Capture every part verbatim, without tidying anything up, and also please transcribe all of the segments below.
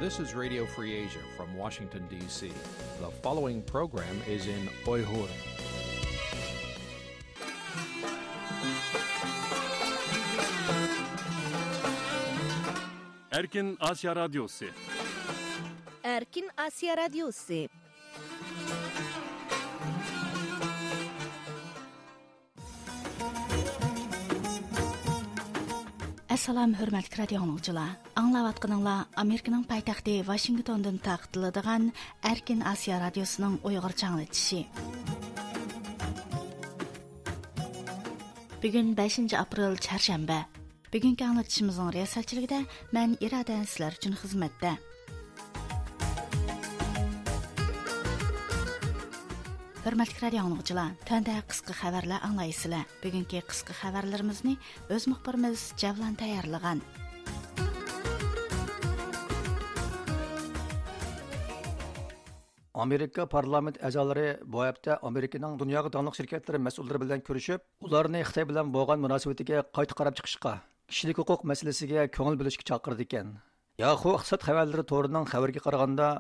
This is Radio Free Asia from Washington, D C. The following program is in Uyghur. Erkin Asya Radyosu. Erkin Asya Radyosu. ئەسسالام، ھۆرمەتلىك رادىيو ئاڭلىغۇچىلار! ئاڭلاۋاتقىنىڭلار ئامېرىكىنىڭ پايتەختى ۋاشىنگتوندىن تارقىتىلىدىغان ئەركىن ئاسىيا رادىيوسىنىڭ ئۇيغۇرچە ئاڭلىتىشى. بۈگۈن بەشىنچى ئاپرېل، چارشەنبە. بۈگۈنكى ئاڭلىتىشىمىزنىڭ رىياسەتچىلىكىدە مەن ئىرادە سىلەر ئۈچۈن خىزمەتتە. ھۆرمەتلىك رادىيو ئاڭلىغۇچىلار، تۆۋەندە قىسقا خەۋەرلەر ئاڭلايسىلەر. بۈگۈنكى قىسقا خەۋەرلىرىمىزنى ئۆز مۇخبىرىمىز جەۋلان تەييارلىغان. ئامېرىكا پارلامېنت ئەزالىرى بۇ ھەپتە ئامېرىكىنىڭ دۇنياغا داڭلىق شىركەتلىرى مەسئۇللىرى بىلەن كۆرۈشۈپ، ئۇلارنى خىتاي بىلەن بولغان مۇناسىۋىتىگە قايتا قاراپ چىقىشقا، كىشىلىك ھوقۇق مەسىلىسىگە كۆڭۈل بۆلۈشكە چاقىرىدىكەن. ياخۇ ئىقتىساد خەۋەرلىرى تورىنىڭ خەۋىرىگە قارىغاندا،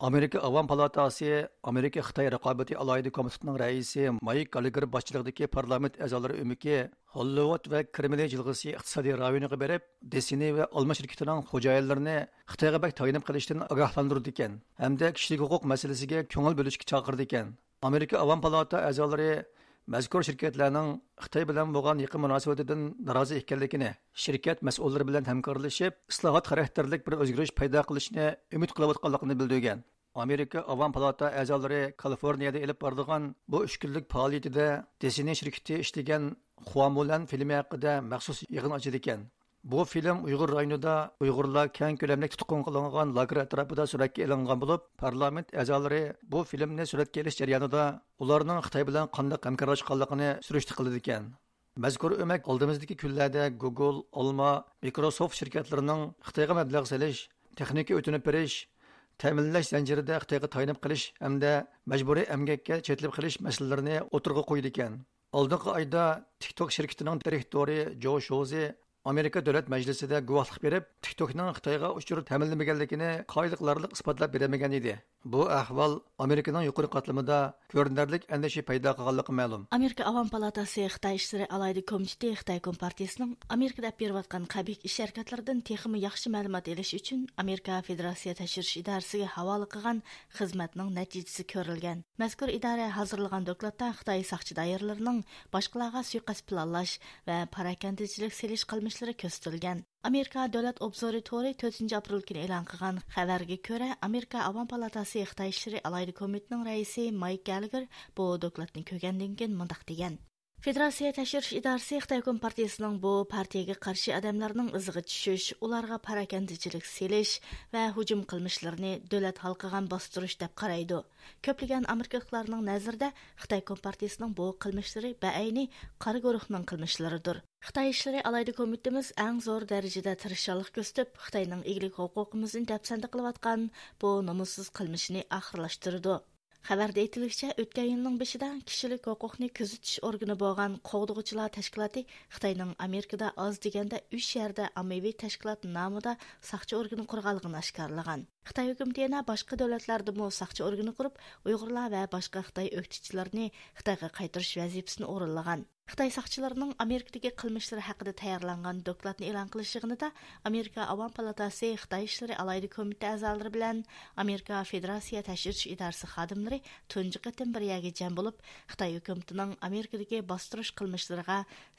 ئامېرىكا ئاۋام پالاتاسى ئامېرىكا خىتاي رىقابىتى ئالاھىدە كومىتېتىنىڭ رەئىسى مايك گاللېگېر باشچىلىقىدىكى پارلامېنت ئەزالىرى ئۆمىكى ھوللىۋۇد ۋە كرېملى جىلغىسى ئىقتىسادىي رايونىغا بېرىپ، دىسنېي ۋە ئالما شىركىتىنىڭ خوجايىنلىرىنى خىتايغا بەك تايىنىپ قېلىشتىن ئاگاھلاندۇرىدىكەن ھەمدە كىشىلىك ھوقۇق مەسىلىسىگە كۆڭۈل بۆلۈشكە چاقىرىدىكەن. ئامېرىكا ئاۋام پالاتا ئەزالىرى مەزكۇر شىركەتلەرنىڭ خىتاي بىلەن بولغان يېقىن مۇناسىۋىتىدىن نارازى ئىكەنلىكىنى، شىركەت مەسئۇللىرى بىلەن ھەمكارلىشىپ، ئىسلاھات خاراكتېرلىك بىر ئۆزگىرىش پەيدا قىلىشىنى ئۈمىد قىلىۋاتقانلىقىنى بىلدۈرگەن. ئامېرىكا ئاۋام پالاتا ئەزالىرى كالىفورنىيەدە ئېلىپ بارىدىغان بۇ ئۈچ كۈنلۈك پائالىيىتىدە دىسنېي شىركىتى ئىشلىگەن خۇامۇلەن فىلىمى ھەققىدە مەخسۇس يىغىن ئاچىدىكەن. بۇ فىلىم ئۇيغۇر رايونىدا ئۇيغۇرلار كەڭ كۆلەملىك تۇتقۇن قىلىنغان لاگېر ئەتراپىدا سۈرەتكە ئېلىنغان بولۇپ، پارلامېنت ئەزالىرى بۇ فىلىمنى سۈرەتكە ئېلىش جەريانىدا ئۇلارنىڭ خىتاي بىلەن قانداق ھەمكارلاشقانلىقىنى سۈرۈشتە قىلىدىكەن. مەزكۇر ئۆمەك ئالدىمىزدىكى كۈنلەردە گۇگل، ئالما، مىكروسوفت شىركەتلىرىنىڭ خىتايغا مەبلەغ سېلىش، تېخنىكا ئۆتۈنۈپ بېرىش، تەمىنلەش زەنجىرىدە خىتايغا تايىنىپ قېلىش ھەمدە مەجبۇرىي ئەمگەككە چېتىلىپ قېلىش مەسىلىلىرىنى ئوتتۇرىغا قويىدىكەن. ئالدىنقى ئايدا تىك توك شىركىتىنىڭ دىرېكتورى جو شوزى ئامېرىكا دۆلەت مەجلىسىدە گۇۋاھلىق بېرىپ، تىك توكنىڭ خىتايغا ئۇچۇر تەمىنلىمىگەنلىكىنى قايىل قىلارلىق ئىسپاتلاپ بېرەلمىگەن ئىدى. بۇ ئەھۋال ئامېرىكىنىڭ يۇقىرى قاتلىمىدا كۆرۈنەرلىك ئەندىشە پەيدا قىلغانلىقى مەلۇم. ئامېرىكا ئاۋام پالاتاسى خىتاي ئىشلىرى ئالاھىدە كومىتېتى خىتاي كومپارتىيىسىنىڭ ئامېرىكىدا ئېلىپ بېرىۋاتقان قەبىھ ئىش ھەرىكەتلىرىدىن تېخىمۇ ياخشى مەلۇمات ئېلىش ئۈچۈن ئامېرىكا فېدېراتسىيە تەكشۈرۈش ئىدارىسىگە ھاۋالە قىلغان خىزمەتنىڭ نەتىجىسى كۆرۈلگەن. مەزكۇر ئىدارە ھازىرلىغان دوكلاتتا خىتاي ساقچى دائىرىلىرىنىڭ باشقىلارغا سۇيىقەست پىلانلاش ۋە پاراكەندىچىلىك سېلىش قىلمىشلىرى كۆرسىتىلگەن. ئامېرىكا دۆلەت ئوبزورى تورى تۆتىنچى ئاپرېل كۈنى ئېلان قىلغان خەۋەرگە كۆرە، ئامېرىكا ئاۋام پالاتاسى خىتاي ئىشلىرى ئالاھىدە كومىتېتىنىڭ رەئىسى مايك گاللېگېر بۇ دوكلاتنى كۆرگەندىن كېيىن مۇنداق دېگەن: فېدېراتسىيە تەكشۈرۈش ئىدارىسى خىتاي كومپارتىيىسىنىڭ بۇ پارتىيىگە قارشى ئادەملەرنىڭ ئىزىغا چۈشۈش، ئۇلارغا پاراكەندىچىلىك سېلىش ۋە ھۇجۇم قىلمىشلىرىنى دۆلەت ھالقىغان باستۇرۇش دەپ قارايدۇ. كۆپلىگەن ئامېرىكىلىقلارنىڭ نەزىرىدە خىتاي كومپارتىيىسىنىڭ بۇ قىلمىشلىرى بەئەينى قارا گۇرۇھنىڭ قىلمىشلىرىدۇر. خىتاي ئىشلىرى ئالاھىدە كومىتېتىمىز ئەڭ زور دەرىجىدە تىرىشچانلىق كۆرسىتىپ، خىتاينىڭ ئىگىلىك ھوقۇقىمىزنى دەپسەندە قىلىۋاتقان بۇ نومۇسسىز قىلمىشىنى ئاخىرلاشتۇرىدۇ. خەۋەردە ئېيتىلىشىچە، ئۆتكەن يىلنىڭ بېشىدا كىشىلىك ھوقۇقنى كۆزىتىش ئورگىنى بولغان قوغدىغۇچىلار تەشكىلاتى خىتاينىڭ ئامېرىكىدا ئاز دېگەندە ئۈچ يەردە ئاممىۋى تەشكىلات نامىدا ساقچى ئورگىنى قۇرغانلىقىنى ئاشكارىلىغان. خىتاي ھۆكۈمىتى يەنە باشقا دۆلەتلەردىمۇ ساقچى ئورگىنى قۇرۇپ، ئۇيغۇرلار ۋە باشقا خىتاي ئۆكتىچىلىرىنى خىتايغا قايتۇرۇش ۋەزىپىسىنى ئورۇنلىغان. خىتاي ساقچىلىرىنىڭ ئامېرىكىدىكى قىلمىشلىرى ھەققىدە تەييارلانغان دوكلاتنى ئېلان قىلىش يىغىنىدا ئامېرىكا ئاۋام پالاتاسى خىتاي ئىشلىرى ئالاھىدە كومىتېتى ئەزالىرى بىلەن ئامېرىكا فېدېراتسىيە تەكشۈرۈش ئىدارىسى خادىملىرى تۇنجى قېتىم بىر يەرگە جەم بولۇپ، خىتاي ھۆكۈمىتىنىڭ ئامېرىكىدىكى باستۇرۇش قىلمىشلىرىغا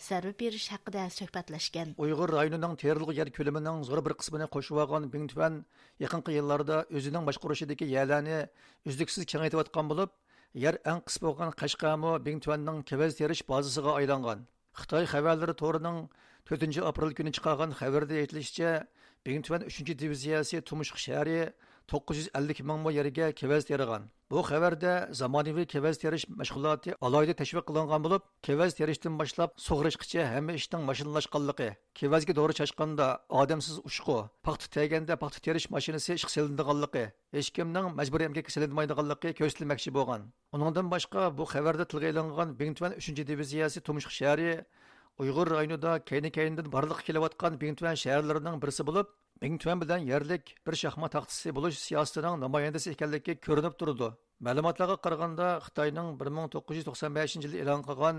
زەربە بېرىش ھەققىدە سۆھبەتلەشكەن. ئۇيغۇر رايونىنىڭ تېرىلغۇ يەر كۆلىمىنىڭ زور بىر قىسمىنى قورشىۋالغان بىڭتۈەن يېقىنقى يىللاردا ئۆزىنىڭ باشقۇرۇشىدىكى يەرلەرنى ئۈزلۈكسىز كېڭەيتىۋاتقان بولۇپ، يەر ئەڭ قىس بولغان قەشقەرمۇ بىڭتۈەننىڭ كېۋەز تېرىش بازىسىغا ئايلانغان. خىتاي خەۋەرلىرى تورىنىڭ تۆتىنچى ئاپرېل كۈنى چىقارغان خەۋىرىدە ئېيتىلىشىچە، بىڭتۈەن ئۈچىنچى دىۋىزىيەسى تۇمشۇق شەھىرى توققۇز يۈز ئەللىك مىڭ مو يەرگە كېۋەز تېرىغان. بۇ خەۋەردە زامانىۋى كېۋەز تېرىش مەشغۇلاتى ئالاھىدە تەشۋىق قىلىنغان بولۇپ، كېۋەز تېرىشتىن باشلاپ سۇغىرىشقىچە ھەممە ئىشنىڭ ماشىنىلاشقانلىقى، كېۋەزگە دورا چاچقاندا ئادەمسىز ئۇچقۇ، پاختا تېرىگەندە پاختا تېرىش ماشىنىسى ئىشقا سېلىنىدىغانلىقى، ھېچكىمنىڭ مەجبۇرىي ئەمگەككە سېلىنمايدىغانلىقى كۆرسىتىلمەكچى بولغان. ئۇنىڭدىن باشقا، بۇ خەۋەردە تىلغا ئېلىنغان بىڭتۈەن ئۈچىنچى دىۋىزىيەسى تۇمشۇق شەھىرى ئۇيغۇر رايونىدا كەينى-كەينىدىن بارلىققا كېلىۋاتقان بىڭتۈەن شەھەرلىرىنىڭ بىرسى بولۇپ، بىڭتۈەن بىلەن يەرلىك بىر شاھمات تاختىسى بولۇش سىياسىتىنىڭ نامايەندىسى ئىكەنلىكى كۆرۈنۈپ تۇرىدۇ. مەلۇماتلارغا قارىغاندا، خىتاينىڭ بىر مىڭ توققۇز يۈز توقسان بەشىنچى يىلى ئېلان قىلغان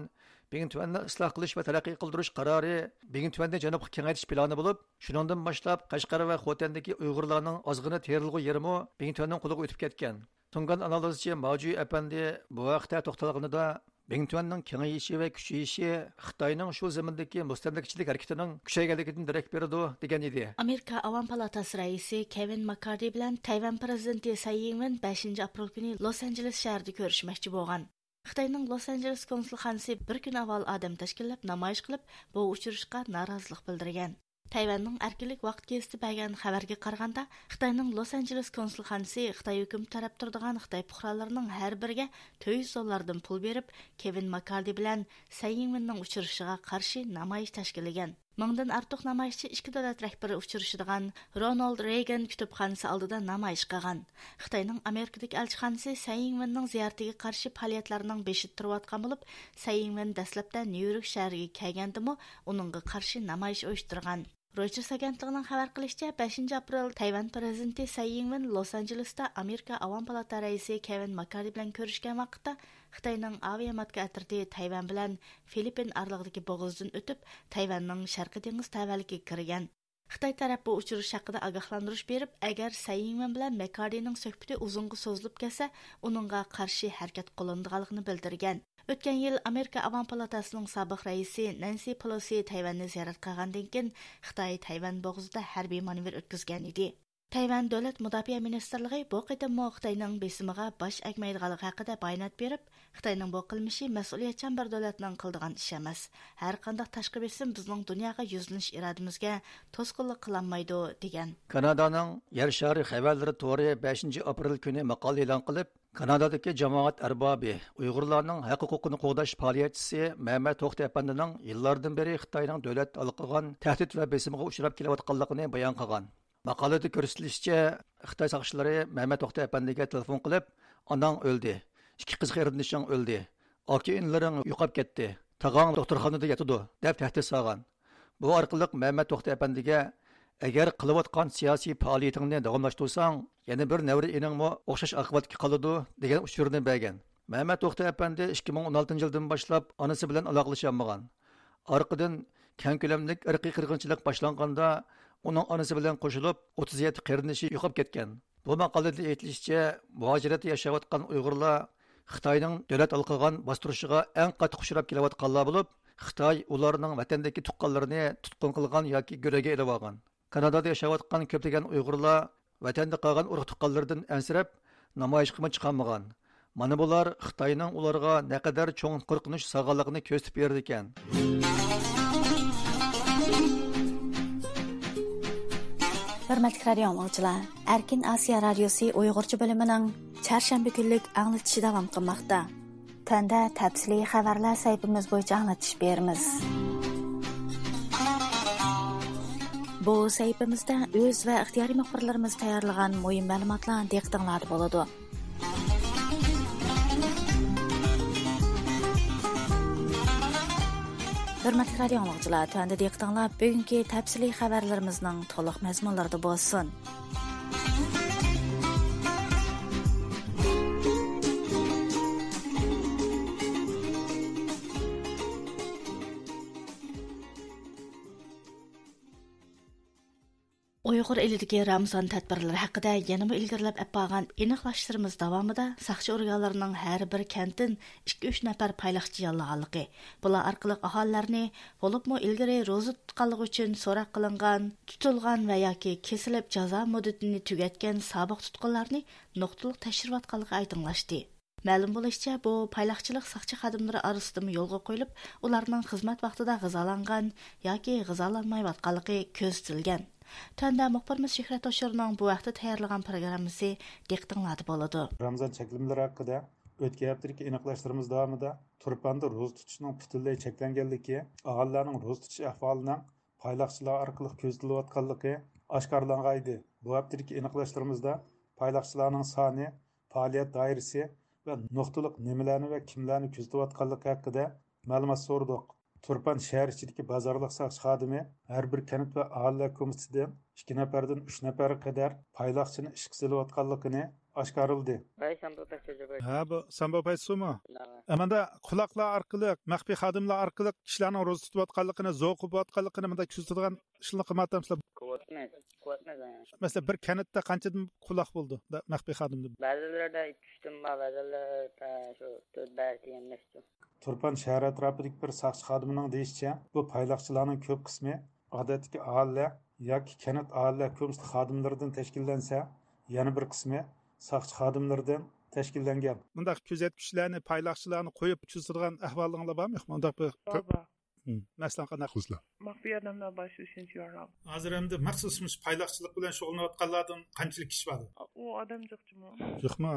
بىڭتۈەننى ئىسلاھ قىلىش ۋە تەرەققىي قىلدۇرۇش قارارى بىڭتۈەننى جەنۇبقا كېڭەيتىش پىلانى بولۇپ، شۇنىڭدىن باشلاپ قەشقەر ۋە خوتەندىكى ئۇيغۇرلارنىڭ ئازغىنە تېرىلغۇ يېرىمۇ بىڭتۈەننىڭ قولىغا ئۆتۈپ كەتكەن. تۇڭگان ئانالىزچى ماجۈ ئەپەندى بۇ ھەقتە توختالغىنىدا، بىڭتۈەننىڭ كېڭىيىشى ۋە كۈچىيىشى خىتاينىڭ شۇ زېمىندىكى مۇستەملىكىچىلىك ھەرىكىتىنىڭ كۈچەيگەنلىكىدىن دېرەك بېرىدۇ، دېگەن ئىدى. ئامېرىكا ئاۋام پالاتاسى رەئىسى كېۋىن ماككاردى بىلەن تەيۋەن پىرېزىدېنتى سەي يىڭۋېن بەشىنچى ئاپرېل كۈنى لوس ئانژېلېس شەھىرىدە كۆرۈشمەكچى بولغان. خىتاينىڭ لوس ئانژېلېس كونسۇلخانىسى بىر كۈن ئاۋۋال ئادەم تەشكىللەپ نامايىش قىلىپ، بۇ ئۇچرىشىشقا نارازىلىق بىلدۈرگەن. تەيۋەننىڭ ئەركىنلىك ۋاقىت گېزىتى بەرگەن خەۋەرگە قارىغاندا، خىتاينىڭ لوس ئانژېلېس كونسۇلخانىسى خىتاي ھۆكۈمىتى تەرەپ تۇرىدىغان خىتاي پۇقرالىرىنىڭ ھەر بىرىگە تۆت يۈز دوللاردىن پۇل بېرىپ، كېۋىن ماككاردى بىلەن سەي يىڭۋېننىڭ ئۇچرىشىشىغا قارشى نامايىش تەشكىللىگەن. مىڭدىن ئارتۇق نامايىشچى ئىككى دۆلەت رەھبىرى ئۇچرىشىدىغان رونالد رېيگان كۇتۇپخانىسى ئالدىدا نامايىش قىلغان. خىتاينىڭ ئامېرىكىدىكى ئەلچىخانىسى سەي يىڭۋېننىڭ زىيارىتىگە قارشى پائالىيەتلەرنىڭ بېشىدا تۇرۇۋاتقان بولۇپ، سەي يىڭۋېن دەسلەپتە نيۇ يورك شەھىرىگە كەلگەندىمۇ ئۇنىڭغا قارشى نامايىش ئۇيۇشتۇرغان. رويتېرس ئاگېنتلىقىنىڭ خەۋەر قىلىشىچە، بەشىنچى ئاپرېل تەيۋەن پىرېزىدېنتى سەي يىڭۋېن لوس ئانژېلېستا ئامېرىكا ئاۋام پالاتا رەئىسى كېۋىن ماككاردى بىلەن كۆرۈشكەن ۋاقىتتا، خىتاينىڭ ئاۋىئاماتكا ئەترىتى تەيۋەن بىلەن فىلىپپىن ئارىلىقىدىكى بوغۇزدىن ئۆتۈپ، تەيۋەننىڭ شەرقىي دېڭىز تەۋەلىكىگە كىرگەن. خىتاي تەرەپ بۇ ئۇچرىشىش ھەققىدە ئاگاھلاندۇرۇش بېرىپ، ئەگەر سەي يىڭۋېن بىلەن ماككاردىنىڭ سۆھبىتى ئۇزۇنغا سوزۇلۇپ كەتسە، ئۇنىڭغا قارشى ھەرىكەت قوللىنىدىغانلىقىنى بىلدۈرگەن. ئۆتكەن يىل ئامېرىكا ئاۋام پالاتاسىنىڭ سابىق رەئىسى نەنسى پېلوسى تەيۋەننى زىيارەت قىلغاندىن كېيىن، خىتاي تەيۋەن بوغۇزىدا ھەربىي مانېۋىر ئۆتكۈزگەن ئىدى. تەيۋەن دۆلەت مۇداپىئە مىنىستىرلىقى بۇ قېتىممۇ خىتاينىڭ بېسىمىغا باش ئەگمەيدىغانلىقى ھەققىدە بايانات بېرىپ، خىتاينىڭ بۇ قىلمىشى مەسئۇلىيەتچان بىر دۆلەتنىڭ قىلىدىغان ئىشى ئەمەس. ھەر قانداق تاشقى بېسىم بىزنىڭ دۇنياغا يۈزلىنىش ئىرادىمىزگە توسقۇنلۇق قىلالمايدۇ، دېگەن. كانادانىڭ يەر شارى خەۋەرلىرى تورى بەشىنچى ئاپرېل كۈنى ماقالە ئېلان قىلىپ، كانادادىكى جامائەت ئەربابى، ئۇيغۇرلارنىڭ ھەق ھوقۇقىنى قوغداش پائالىيەتچىسى مەمەت توختى ئەپەندىنىڭ يىللاردىن بېرى خىتاينىڭ دۆلەت ھالقىغان تەھدىت ۋە بېسىمىغا ئۇچراپ كېلىۋاتقانلىقىنى بايان قىلغان. ماقالىدە كۆرسىتىلىشىچە، خىتاي ساقچىلىرى مەمەت توختى ئەپەندىگە تېلېفون قىلىپ، «ئاناڭ ئۆلدى، ئىككى قىز قېرىندىشىڭ ئۆلدى، ئاكا-ئىنىلىرىڭ يوقاپ كەتتى، تاغاڭ دوختۇرخانىدا ياتىدۇ» دەپ تەھدىت سالغان. بۇ ئارقىلىق مەمەت توختى ئەپەندىگە، «ئەگەر قىلىۋاتقان سىياسىي پائالىيىتىڭنى داۋاملاشتۇرساڭ، يەنە بىر نەۋرە ئىنىڭمۇ ئوخشاش ئاقىۋەتكە قالىدۇ» دېگەن ئۇچۇرنى بەرگەن. مەمەت توختى ئەپەندى ئىككى مىڭ ئون ئالتىنچى يىلدىن باشلاپ ئانىسى بىلەن ئالاقىلىشالمىغان. ئارقىدىن كەڭ كۆلەملىك ئىرقىي قىرغىنچىلىق باشلانغاندا، ئۇنىڭ ئانىسى بىلەن قوشۇلۇپ ئوتتۇز يەتتە قېرىندىشى يوقاپ كەتكەن. بۇ ماقالىدە ئېيتىلىشىچە، مۇھاجىرەتتە ياشاۋاتقان ئۇيغۇرلار خىتاينىڭ دۆلەت ھالقىغان باستۇرۇشىغا ئەڭ قاتتىق ئۇچراپ كېلىۋاتقانلار بولۇپ، خىتاي ئۇلارنىڭ ۋەتەندىكى تۇغقانلىرىنى تۇتقۇن قىلغان ياكى گۆرۈگە ئېلىۋالغان. كانادادا ياشاۋاتقان كۆپلىگەن ئۇيغۇرلار ۋەتەندە قالغان ئۇرۇق-تۇغقانلىرىدىن ئەنسىرەپ، نامايىشقىمۇ چىقالمىغان. مانا بۇلار خىتاينىڭ ئۇلارغا نەقەدەر چوڭ قورقۇنچ سالغانلىقىنى كۆرسىتىپ بېرىدىكەن. ھۆرمەتلىك رادىيو ئاڭلىغۇچىلار، ئەركىن ئاسىيا رادىيوسى ئۇيغۇرچە بۆلۈمىنىڭ چارشەنبە كۈنلۈك ئاڭلىتىشى داۋام قىلماقتا. تۆۋەندە تەپسىلىي خەۋەرلەر سەھىپىمىز بويىچە ئاڭلىتىش بېرىمىز. بۇ سەھىپىمىزدە ئۆز ۋە ئىختىيارىي مۇخبىرلىرىمىز تەييارلىغان مۇھىم مەلۇماتلار دىققىتىڭلاردا بولىدۇ. ھۆرمەتلىك رادىيو ئاڭلىغۇچىلار، تۆۋەندە دىققىتىڭلار بۈگۈنكى تەپسىلىي خەۋەرلىرىمىزنىڭ تولۇق مەزمۇنلىرىدا بولسۇن. ئۇيغۇر ئېلىدىكى رامىزان تەدبىرلىرى ھەققىدە يەنىمۇ ئىلگىرىلەپ ئەپ بارغان ئېنىقلاشلىرىمىز داۋامىدا ساقچى ئورگانلىرىنىڭ ھەر بىر كەنتتىن ئىككى، ئۈچ نەپەر پايلاقچى ياللىغانلىقى، بۇلار ئارقىلىق ئاھالىلەرنى، بولۇپمۇ ئىلگىرى روزا تۇتقانلىقى ئۈچۈن سوراق قىلىنغان، تۇتۇلغان ۋە ياكى كېسىلىپ جازا مۇددىتىنى تۈگەتكەن سابىق تۇتقۇنلارنى نۇقتىلىق تەكشۈرۈۋاتقانلىقى ئايدىڭلاشتى. مەلۇم بولۇشىچە، بۇ پايلاقچىلىق ساقچى خادىملىرى ئارىسىدىمۇ يولغا قويۇلۇپ، ئۇلارنىڭ خىزمەت ۋاقتىدا غىزالانغان ياكى غىزالانمايۋاتقانلىقى كۆزىتىلگەن. تۆۋەندە مۇخبىرىمىز شۆھرەت ھوشۇرنىڭ بۇ ھەقتە تەييارلىغان پروگراممىسى دىققىتىڭلاردا بولىدۇ. رامىزان چەكلىمىلىرى ھەققىدە ئۆتكەن ھەپتىدىكى ئېنىقلاشلىرىمىز داۋامىدا تۇرپاندا روزا تۇتۇشنىڭ پۈتۈنلەي چەكلەنگەنلىكى، ئاھالىلەرنىڭ روزا تۇتۇش ئەھۋالىنىڭ پايلاقچىلار ئارقىلىق كۆزىتىلىۋاتقانلىقى ئاشكارىلانغان ئىدى. بۇ ھەپتىدىكى ئېنىقلاشلىرىمىزدا پايلاقچىلارنىڭ سانى، پائالىيەت دائىرىسى ۋە نۇقتىلىق نېمىلەرنى ۋە كىملەرنى كۆزىتىۋاتقانلىقى ھەققىدە مەلۇمات سورىدۇق. تۇرپان شەھەر ئىچىدىكى بازارلىق ساقچى خادىمى ھەر بىر كەنت ۋە ئاھالىلەر كومىتېتىدىن ئىككى نەپەردىن ئۈچ نەپەرگە قەدەر پايلاقچىنى ئىشقا سېلىۋاتقانلىقىنى ئاشكارىلىدى. ۋەي، سامبو پەيسۇجى بەي. ھە، بۇ سامبو پەيسۇمۇ؟ ھە. ئە، ماندا قۇلاقلار ئارقىلىق، مەخپىي خادىملار ئارقىلىق كىشىلەرنىڭ روزا تۇتۇۋاتقانلىقىنى، زوقۇ بولۇۋاتقانلىقىنى مۇنداق كۆزىتىدىغان ئىشلارنى قىلمايۋاتامسىلەر؟ قىلىۋاتىمىز، قىلىۋاتىمىز. مەسىلەن، بىر كەنتتە قانچىدىن قۇلاق بولىدۇ، مەخپىي خادىمدىن؟ بەزىلىرىدە ئىككى ئۈچتىن بار، بەزىلىرىدە شۇ تۆت بەش دېگەندەك شۇ. تۇرپان شەھەر ئەتراپىدىكى بىر ساقچى خادىمىنىڭ دېيىشىچە، بۇ پايلاقچىلارنىڭ كۆپ قىسمى ئادەتتىكى ئاھالىلەر ياكى كەنت ئاھالىلەر كومىتېتى خادىملىرىدىن تەشكىللەنسە، يەنە بىر قىسمى ساقچى خادىملىرىدىن تەشكىللەنگەن. مۇنداق كۆزەتكۈچىلەرنى، پايلاقچىلارنى قويۇپ كۆزىتىدىغان ئەھۋالىڭلار بارمۇ، يوقمۇ؟ مۇنداق بىر بار، بار. مم. مەسىلەن، قانداق؟ خۇسلا. مەخپىي ئادەملەر بار شۇ ئۈچىنچى يارام. ھازىر ئەمدى مەخسۇس مۇشۇ پايلاقچىلىق بىلەن شۇغۇللىنىۋاتقانلاردىن قانچىلىك كىشى بار؟ ئۇ ئادەم جىقچىمۇ. يوقمۇ؟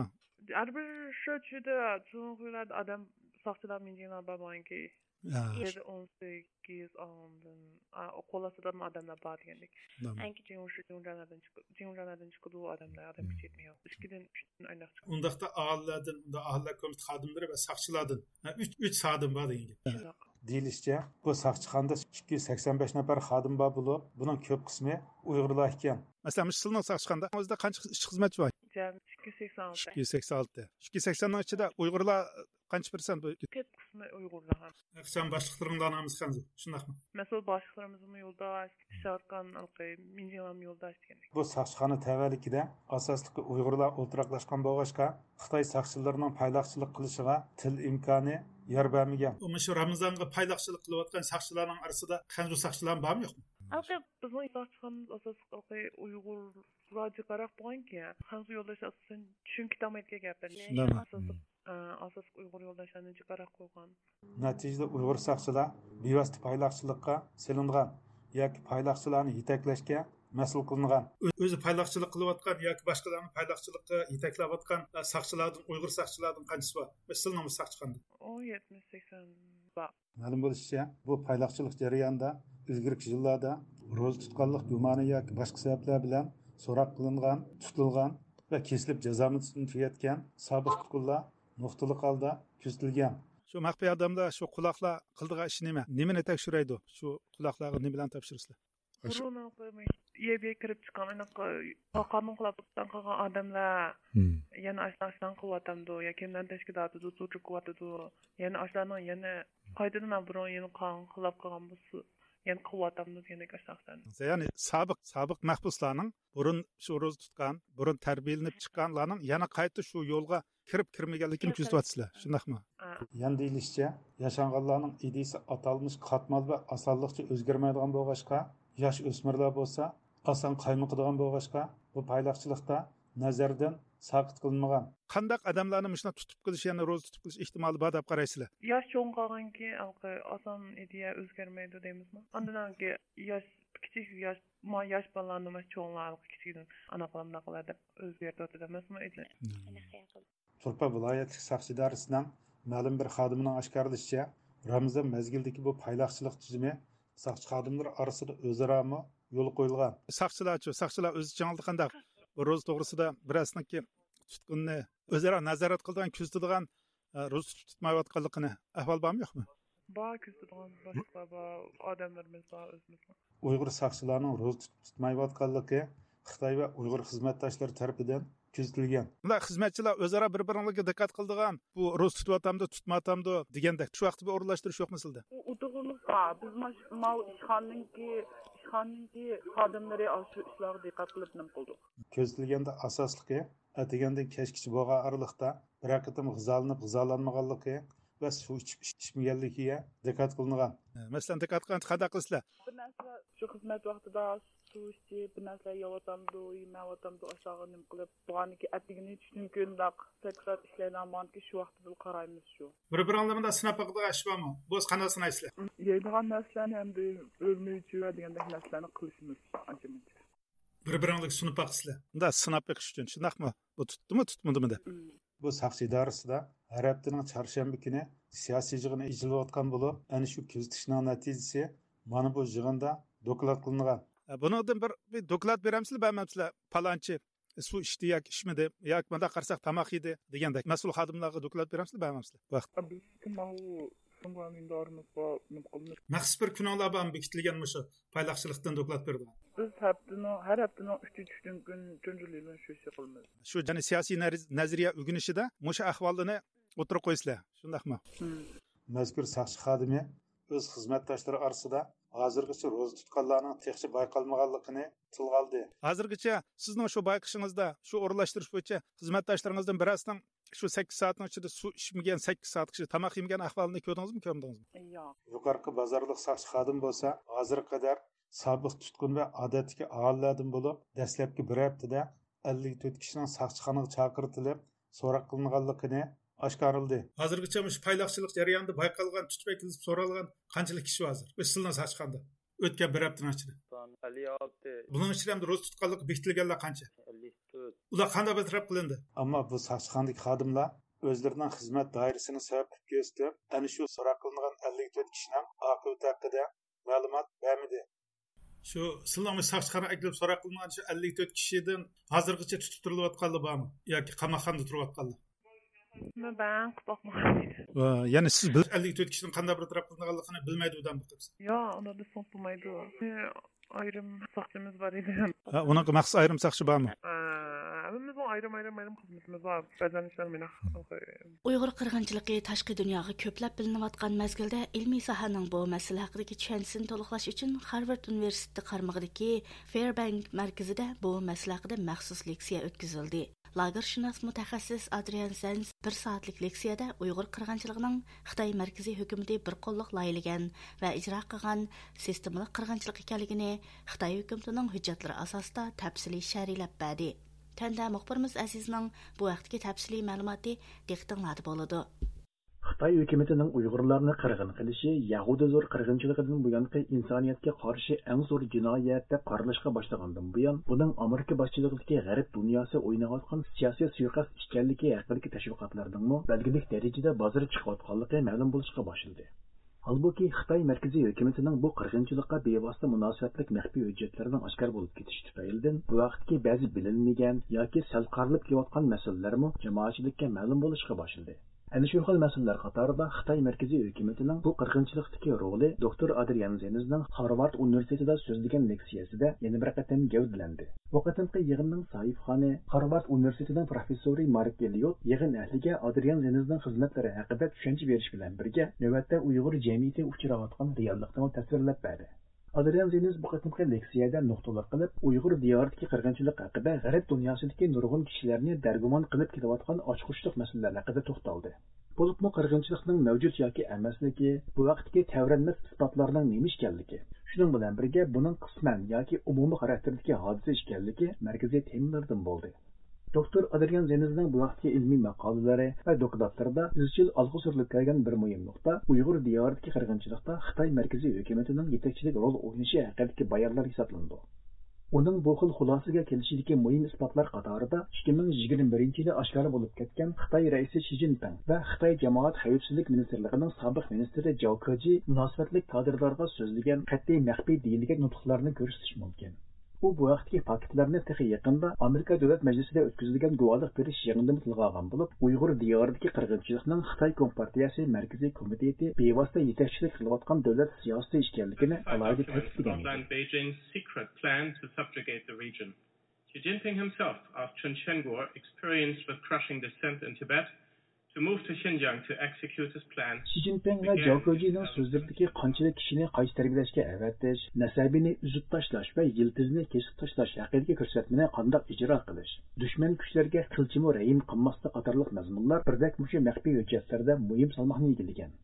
ھەر بىر شۇ چۈشىدە چوڭ خۇيلاردا ئادەم ساقچىلار مىڭجىڭلار بار بولغانكى. ھە. يەتتە، ئون سەككىز ئاندىن، ئا، قول ئاستىدىمۇ ئادەملەر بار دېگەندەك. ئەڭ كىچىكى مۇشۇ جىڭجانلاردىن چىقىدۇ، جىڭجانلاردىن چىقىدۇ ئۇ ئادەملەر، ئادەم كۈچەيتمەيدۇ. ئىككىدىن، ئۈچتىن ئايلاق چىقىدۇ. ئۇنداقتا ئاھالىلەردىن، ئۇنداق ئاھالىلەر كومىتېتى خادىملىرى ۋە ساقچىلاردىن، ھە، ئۈچ، ئۈچ خادىم بار دېگەن گەپ. شۇنداق. دېيىلىشىچە، بۇ ساقچىخانىدا ئىككى يۈز سەكسەن بەش نەپەر خادىم بار بولۇپ، بۇنىڭ كۆپ قىسمى ئۇيغۇرلار ئىكەن. مەسىلەن، مۇشۇ سىلىنىڭ ساقچىخانىدا ئۆزىدە قانچە ئىشچى خىزمەتچى بار؟ جەمئىي ئىككى يۈز سەكسەن ئالتە. ئىككى يۈز سەكسەن ئالتە. ئىككى يۈز سەكسەننىڭ ئىچىدە ئۇيغۇرلار قانچە پىرسەنت بۇ؟ كۆپ قىسمى ئۇيغۇرلار. ئەخسان باشلىقلىرىڭلارنىڭ ھەممىسى خەنزۇ، شۇنداقمۇ؟ مەسئۇل باشلىقلىرىمىزمۇ يولداش، ئىشاركان، مىنجىڭلارمۇ يولداش دېگەندەك. بۇ ساقچىخانا تەۋەلىكىدە ئاساسلىقى ئۇيغۇرلار ئولتۇراقلاشقان بولغاچقا، خىتاي ساقچىلىرىنىڭ پايلاقچىلىق قىلىشىغا تىل ئىمكانى يار بەرمىگەن. مۇشۇ رامىزانغا پايلاقچىلىق قىلىۋاتقان ساقچىلارنىڭ ئارىسىدا خەنزۇ ساقچىلارمۇ بارمۇ، يوقمۇ؟ ھەقىقەت بىزنىڭ ساقچىخانىمىز ئاساسلىق ئۇيغۇرلار جىقراق بولغانكەن، خەنزۇ يولداشلار ئاساسەن چۈشىنىپ كېتەلمەيدىكەن گەپلەرنى. شۇنداقمۇ؟ ئاساسلىق، ئاساسلىق ئۇيغۇر يولداشلارنى جىقراق قويغان. نەتىجىدە ئۇيغۇر ساقچىلار بىۋاسىتە پايلاقچىلىققا سېلىنغان ياكى پايلاقچىلارنى يېتەكلەشكە مەسئۇل قىلىنغان. ئۆ-، ئۆزى پايلاقچىلىق قىلىۋاتقان ياكى باشقىلارنى پايلاقچىلىققا يېتەكلەۋاتقان، ئە، ساقچىلاردىن، ئۇيغۇر ساقچىلاردىن قانچىسى بار؟ مەسىلەن، سىلىنىڭمۇ ساقچىخانىدا. ئۇ يەتمىش سەكسەن بار. مەلۇم بولۇشىچە، بۇ پايلاقچىلىق جەريانىدا ئىلگىرىكى يىللاردا روزا تۇتقانلىق گۇمانى ياكى باشقا سەۋەبلەر بىلەن سوراق قىلىنغان، تۇتۇلغان ۋە كېسىلىپ جازا مۇددىتىنى تۈگەتكەن سابىق تۇتقۇنلار نۇقتىلىق ھالدا كۆزىتىلگەن. شۇ مەخپىي ئادەملەر، شۇ قۇلاقلار قىلىدىغان ئىشى نېمە؟ نېمىنى تەكشۈرەيدۇ؟ شۇ قۇلاقلارغا نېمىلەرنى تاپشۇرىسىلەر؟ بۇرۇن يەرگە كىرىپ چىققان، ئانداق قانۇن خىلاپلىقتىن قىلغان ئادەملەر يەنە ئاشۇنداق قىلىۋاتامدۇ يا كىملەرنىڭ تەشكىلاتىدۇ تۇرۇپ قىلىۋاتىدۇ؟ يەنە ئاشۇلارنىڭ يەنە قايتىدىن بۇرۇن يەنە قانۇن خىلاپ قىلغان بولسا يەنە قىلىۋاتامدۇ دېگەندەك ئاشۇنداق. يەنى سابىق، سابىق مەھبۇسلارنىڭ بۇرۇن شۇ روزا تۇتقان، بۇرۇن تەربىيەلىنىپ چىققانلارنىڭ يەنە قايتا شۇ يولغا كىرىپ كىرمىگەنلىكىنى كۆزىتىۋاتىسىلەر، شۇنداقمۇ؟ ئا. يەنە دېيىلىشىچە، ياشانغانلارنىڭ ئىدىيىسى ئاتالمىش قاتمال ۋە ئاسانلىقچە ئۆزگەرمەيدىغان بولغاچقا، ياش ئۆسمۈرلەر بولسا ئاسان قايمۇقىدىغان بولغاچقا، بۇ پايلاقچىلىقتا نەزەردىن ساقىت قىلىنمىغان. قانداق ئادەملەرنى مۇشۇنداق تۇتۇپ قېلىش، يەنى روزا تۇتۇپ قېلىش ئېھتىمالى بار دەپ قارايسىلەر؟ ياش چوڭ قالغانكى، ھېلىقى ئاسان ئىدىيە ئۆزگەرمەيدۇ دەيمىزمۇ؟ ئاندىن كېيىن ياش، كىچىك ياش، ما ياش بالىلارنى مانا چوڭلار ھېلىقى كىچىكىدىن ئانا قىلىمداق قىلار دەپ ئۆزگەرتىۋاتىدۇ ئەمەسمۇ؟ تۇرپان ۋىلايەتلىك ساقچى ئىدارىسىنىڭ مەلۇم بىر خادىمىنىڭ ئاشكارىلىشىچە، رامىزان مەزگىلىدىكى بۇ پايلاقچىلىق تۈزۈمى ساقچى خادىملىرى ئارىسىدا ئۆزئارامۇ يولغا قويۇلغان. ساقچىلارچۇ، ساقچىلار ئۆز ئىچىڭلاردا قانداق بۇ روزا توغرىسىدا بىرەرسىنىڭكى تۇتقۇنىنى ئۆزئارا نازارەت قىلىدىغان، كۆزىتىدىغان، ئە، روزا تۇتۇپ تۇتمايۋاتقانلىقىنى ئەھۋال بارمۇ يوقمۇ؟ بار، كۆزىتىدىغان باشلىقلار بار، ئادەملىرىمىز بار، ئۆزىمىزنىڭ. ئۇيغۇر ساقچىلارنىڭ روزا تۇتۇپ تۇتمايۋاتقانلىقى خىتاي ۋە ئۇيغۇر خىزمەتداشلىرى تەرىپىدىن كۆزىتىلگەن. بۇنداق خىزمەتچىلەر ئۆزئارا بىر-بىرىڭلارغا دىققەت قىلىدىغان، بۇ روزا تۇتۇۋاتامدۇ، تۇتمايۋاتامدۇ دېگەندەك شۇ ۋاقىتتا بىر ئورۇنلاشتۇرۇش يوقمۇ سىلىدە؟ ئۇ، ئۇ توغرىلىق بار. بىز ماش-، ماۋۇ ئىشخانىنىڭكى، ئىشخانىنىڭكى خادىملىرى ئاشۇ ئىشلارغا دىققەت قىلىپ نېمە قىلدۇق. كۆزىتىلگەندە ئاساسلىقى ئەتىگەندىن كەچكىچە بولغان ئارىلىقتا بىرەر قېتىم غىزالىنىپ غىزالانمىغانلىقى ۋە سۇ ئىچىپ ئىچمىگەنلىكىگە دىققەت قىلىنغان. مەسىلەن، دىققەت قىلغاندا قانداق قىلىسىلەر؟ بىر نەرسىلەر شۇ خىزمەت ۋاقتىدا سۇ ئىچىپ، بىر نەرسىلەر يەۋاتامدۇ، يېمەيۋاتامدۇ، ئاشۇلارغا نېمە قىلىپ، بولغاندىكىن ئەتىگىنى چۈشتىن كېيىن مۇنداق سەكرات ئىشلەيدىغان بولغاندىكىن شۇ ۋاقتىدىلا قارايمىز شۇ. بىر-بىرىڭلار مۇنداق سىناپ باقىدىغان ئىش بارمۇ؟ بولسا قانداق سىنايسىلەر؟ يەيدىغان نەرسىلەرنى ئەمدى ئۆرمىچى ۋە دېگەندەك نەرسىلەرنى قىلىشىمىز ئانچە-مۇنچە. بىر-بىرىڭلارگە سۇنۇپ باقىسىلەر. مۇنداق سىناپ بېقىش ئۈچۈن، شۇنداقمۇ؟ بۇ تۇتتىمۇ، تۇتمىدىمۇ دەپ. بۇ ساقچى ئىدارىسىدا ھەر ھەپتىنىڭ چارشەنبە كۈنى سىياسىي يىغىنى ئېچىلىۋاتقان بولۇپ، ئەنە شۇ كۆزىتىشنىڭ نەتىجىسى مانا بۇ يىغىندا دوكلات قىلىنغان. ئە، بۇنىڭدىن بىر، بىر دوكلات بېرەمسىلەر، بەرمەمسىلەر؟ پالانچى سۇ ئىچتى ياكى ئىچمىدى، ياكى مۇنداق قارىساق تاماق يېدى دېگەندەك مەسئۇل خادىملارغا دوكلات بېرەمسىلەر، بەرمەمسىلەر؟ بۇ ھەقتە. بىز ماۋۇ شۇڭا مىننەتدارىمىز بار، نېمە قىلىمىز؟ مەخسۇس بىر كۈنۈڭلار بارمۇ بېكىتىلگەن مۇشۇ پايلاقچىلىقتىن دوكلات بېرىدىغان؟ بىز ھەپتىنىڭ، ھەر ھەپتىنىڭ ئۈچىنچى كۈنى چۈنجۈلىلىن شۇ ئىشنى قىلىمىز. شۇ يەنى سىياسىي نەرز-، نەزەرىيە ئۆگىنىشىدە مۇشۇ ئەھۋالنى ئوتتۇرىغا قويىسىلەر، شۇنداقمۇ؟ مەزكۇر ساقچى خادىمى ئۆز خىزمەتداشلىرى ئارىسىدا ھازىرغىچە روزا تۇتقانلارنىڭ تېخىچە بايقالمىغانلىقىنى تىلغا ئالدى. ھازىرغىچە سىزنىڭ شۇ بايقىشىڭىزدا، شۇ ئورۇنلاشتۇرۇش بويىچە خىزمەتداشلىرىڭىزدىن بىرەرسىنىڭ شۇ سەككىز سائەتنىڭ ئىچىدە سۇ ئىچمىگەن، سەككىز سائەتكىچە تاماق يېمىگەن ئەھۋالىنى كۆردىڭىزمۇ، كۆرمىدىڭىزمۇ؟ ياق. يۇقىرىقى بازارلىق ساقچى خادىم بولسا ھازىرغا قەدەر سابىق تۇتقۇن ۋە ئادەتتىكى ئاھالىلەردىن بولۇپ، دەسلەپكى بىر ھەپتىدە ئەللىك تۆت كىشىنىڭ ساقچىخانىغا چاقىرتىلىپ، سوراق قىلىنغانلىقىنى ئاشكارىلىدى. ھازىرغىچە مۇشۇ پايلاقچىلىق جەريانىدا بايقالغان، تۇتۇپ ئەكېلىپ سورالغان قانچىلىك كىشى ھازىر؟ ئۆز سىلىنىڭ ساقچىخانىدا ئۆتكەن بىر ھەپتىنىڭ ئىچىدە. ئەللىك ئالتە. بۇنىڭ ئىچىدە ئەمدى روزا تۇتقانلىقى بېكىتىلگەنلەر قانچە؟ ئەللىك تۆت. ئۇلار قانداق بىر تەرەپ قىلىندى؟ ئەمما بۇ ساقچىخانىدىكى خادىملار ئۆزلىرىنىڭ خىزمەت دائىرىسىنى سەۋەب قىلىپ كۆرسىتىپ، ئەنە شۇ سوراق قىلىنغان ئەللىك تۆت كىشىنىڭ ئاقىۋىتى ھەققىدە مەلۇمات بەرمىدى. شۇ سىلىنىڭ ساقچىخانىغا ئەكېلىپ سوراق قىلىنغان شۇ ئەللىك تۆت كىشىدىن ھازىرغىچە تۇتۇپ تۇرۇلۇۋاتقانلار بارمۇ؟ ياكى قاماقخانىدا تۇرۇۋاتقانلار؟ مەن بەڭ قىپاقمىغان. ۋە يەنى سىز بىل-، ئەللىك تۆت كىشىنىڭ قانداق بىر تەرەپ قىلىنغانلىقىنى بىلمەيدۇ دەم بېقىپسىز؟ ياق، ئۇنى دېسەڭ بولمايدۇ. ئايرىم ساقچىمىز بار ئىدى. ھە، ئۇنىڭغا مەخسۇس ئايرىم ساقچى بارمۇ؟ ھە، ھەممىمىزنىڭ ئايرىم، ئايرىم، ئايرىم خىزمىتىمىز بار. بەزەن ئىشلار مېنىڭ. ئۇيغۇر قىرغىنچىلىقى تاشقى دۇنياغا كۆپلەپ بىلىنىۋاتقان مەزگىلدە ئىلمىي ساھەنىڭ بۇ مەسىلە ھەققىدىكى چۈشەنچىسىنى تولۇقلاش ئۈچۈن خارۋارد ئۇنىۋېرسىتېتى قارمىقىدىكى فېربەنك مەركىزىدە بۇ مەسىلە ھەققىدە مەخسۇس لېكسىيە ئۆتكۈزۈلدى. لاگېرشۇناس مۇتەخەسسىس ئادرىيان زېنز بىر سائەتلىك لېكسىيەدە ئۇيغۇر قىرغىنچىلىقىنىڭ خىتاي مەركىزىي ھۆكۈمىتى بىر قوللۇق لايىھەلىگەن ۋە ئىجرا قىلغان سىستېمىلىق قىرغىنچىلىق ئىكەنلىكىنى، خىتاي ھۆكۈمىتىنىڭ ھۆججەتلىرى ئاساسىدا تەپسىلىي شەرھلەپ بەردى. تۆۋەندە مۇخبىرىمىز ئەزىزنىڭ بۇ ھەقتىكى تەپسىلىي مەلۇماتى دىققىتىڭلاردا بولىدۇ. خىتاي ھۆكۈمىتىنىڭ ئۇيغۇرلارنى قىرغىن قىلىشى يەھۇدىي زور قىرغىنچىلىقىدىن بۇيانقى ئىنسانىيەتكە قارشى ئەڭ زور جىنايەت دەپ قارىلىشقا باشلىغاندىن بۇيان، بۇنىڭ ئامېرىكا باشچىلىقىدىكى غەرب دۇنياسى ئويناۋاتقان سىياسىي سۇيىقەست ئىكەنلىكى ھەققىدىكى تەشۋىقاتلارنىڭمۇ بەلگىلىك دەرىجىدە بازىرى چىقىۋاتقانلىقى مەلۇم بولۇشقا باشلىدى. ھالبۇكى، خىتاي مەركىزىي ھۆكۈمىتىنىڭ بۇ قىرغىنچىلىققا بىۋاسىتە مۇناسىۋەتلىك مەخپىي ھۆججەتلىرىنىڭ ئاشكارا بولۇپ كېتىشى تۈپەيلىدىن، بۇ ۋاقىتتىكى بەزى بىلىنمىگەن ياكى سەل قارىلىپ كېلىۋاتقان مەسىلىلەرمۇ جامائەتچىلىككە مەلۇم بولۇشقا باشلىدى. ئەنە شۇ خىل مەسىلىلەر قاتارىدا خىتاي مەركىزىي ھۆكۈمىتىنىڭ بۇ قىرغىنچىلىقتىكى رولى دوكتور ئادرىيان زېنزنىڭ خارۋارد ئۇنىۋېرسىتېتىدا سۆزلىگەن لېكسىيەسىدە يەنە بىر قېتىم گەۋدىلەندى. بۇ قېتىمقى يىغىننىڭ ساھىبخانى خارۋارد ئۇنىۋېرسىتېتىنىڭ پروفېسسورى مارك ئېللىيوت يىغىن ئەھلىگە ئادرىيان زېنزنىڭ خىزمەتلىرى ھەققىدە چۈشەنچە بېرىش بىلەن بىرگە، نۆۋەتتە ئۇيغۇر جەمئىيىتى ئۇچراۋاتقان رېئاللىقنىمۇ تەسۋىرلەپ بەردى. ئادرىيان زېنز بۇ قېتىمقى لېكسىيەدە نۇقتىلىق قىلىپ، ئۇيغۇر دىيارىدىكى قىرغىنچىلىق ھەققىدە غەرب دۇنياسىدىكى نۇرغۇن كىشىلەرنى دەرگۇمان قىلىپ كېلىۋاتقان ئاچقۇچلۇق مەسىلىلەر ھەققىدە توختالدى. بولۇپمۇ قىرغىنچىلىقنىڭ مەۋجۇت ياكى ئەمەسلىكى، بۇ ھەقتىكى تەۋرەنمەس ئىسپاتلارنىڭ نېمە ئىكەنلىكى، شۇنىڭ بىلەن بىرگە بۇنىڭ قىسمەن ياكى ئومۇمىي خاراكتېردىكى ھادىسە ئىكەنلىكى مەركىزىي تېمىلىرىدىن بولدى. دوكتور ئادرىيان زېنزنىڭ بۇ ھەقتىكى ئىلمىي ماقالىلىرى ۋە دوكلاتلىرىدا ئىزچىل ئالغا سۈرۈلۈپ كەلگەن بىر مۇھىم نۇقتا ئۇيغۇر دىيارىدىكى قىرغىنچىلىقتا خىتاي مەركىزىي ھۆكۈمىتىنىڭ يېتەكچىلىك رول ئوينىشى ھەققىدىكى بايانلار ھېسابلىنىدۇ. ئۇنىڭ بۇ خىل خۇلاسىگە كېلىشىدىكى مۇھىم ئىسپاتلار قاتارىدا ئىككى مىڭ يىگىرمە بىرىنچى يىلى ئاشكارا بولۇپ كەتكەن خىتاي رەئىسى شى جىنپىڭ ۋە خىتاي جامائەت خەۋپسىزلىك مىنىستىرلىقىنىڭ سابىق مىنىستىرى جاۋ كېجى مۇناسىۋەتلىك كادىرلارغا سۆزلىگەن قەتئىي مەخپىي دېيىلگەن نۇتۇقلارنى كۆرسىتىش مۇمكىن. ئۇ بۇ ھەقتىكى پاكىتلارنى تېخى يېقىندا ئامېرىكا دۆلەت مەجلىسىدە ئۆتكۈزۈلگەن گۇۋاھلىق بېرىش يىغىنىدىمۇ تىلغا ئالغان بولۇپ، ئۇيغۇر دىيارىدىكى قىرغىنچىلىقنىڭ خىتاي كومپارتىيەسى مەركىزىي كومىتېتى بېۋاسىتە يېتەكچىلىك قىلىۋاتقان دۆلەت سىياسىتى ئىكەنلىكىنى ئالاھىدە تەكىتلىگەن ئىدى. Beijing's secret plan to subjugate the region. Xi Jinping himself asked Chen Quanguo, experienced with crushing dissent in Tibet, to move to Xinjiang to execute his plan. شى جىنپىڭ ۋە جاۋ كېجىنىڭ سۆزلىرىدىكى قانچىلىك كىشىنى قايسى تەربىيەلەشكە ئەۋەتىش، نەسەبىنى ئۈزۈپ تاشلاش ۋە يىلتىزىنى كېسىپ تاشلاش ھەققىدىكى كۆرسەتمىنى قانداق ئىجرا قىلىش، دۈشمەن كۈچلەرگە قىلچىمۇ رەھىم قىلماسلىق قاتارلىق مەزمۇنلار بىردەك مۇشۇ مەخپىي ھۆججەتلەردە مۇھىم سالماقنى ئىگىلىگەن.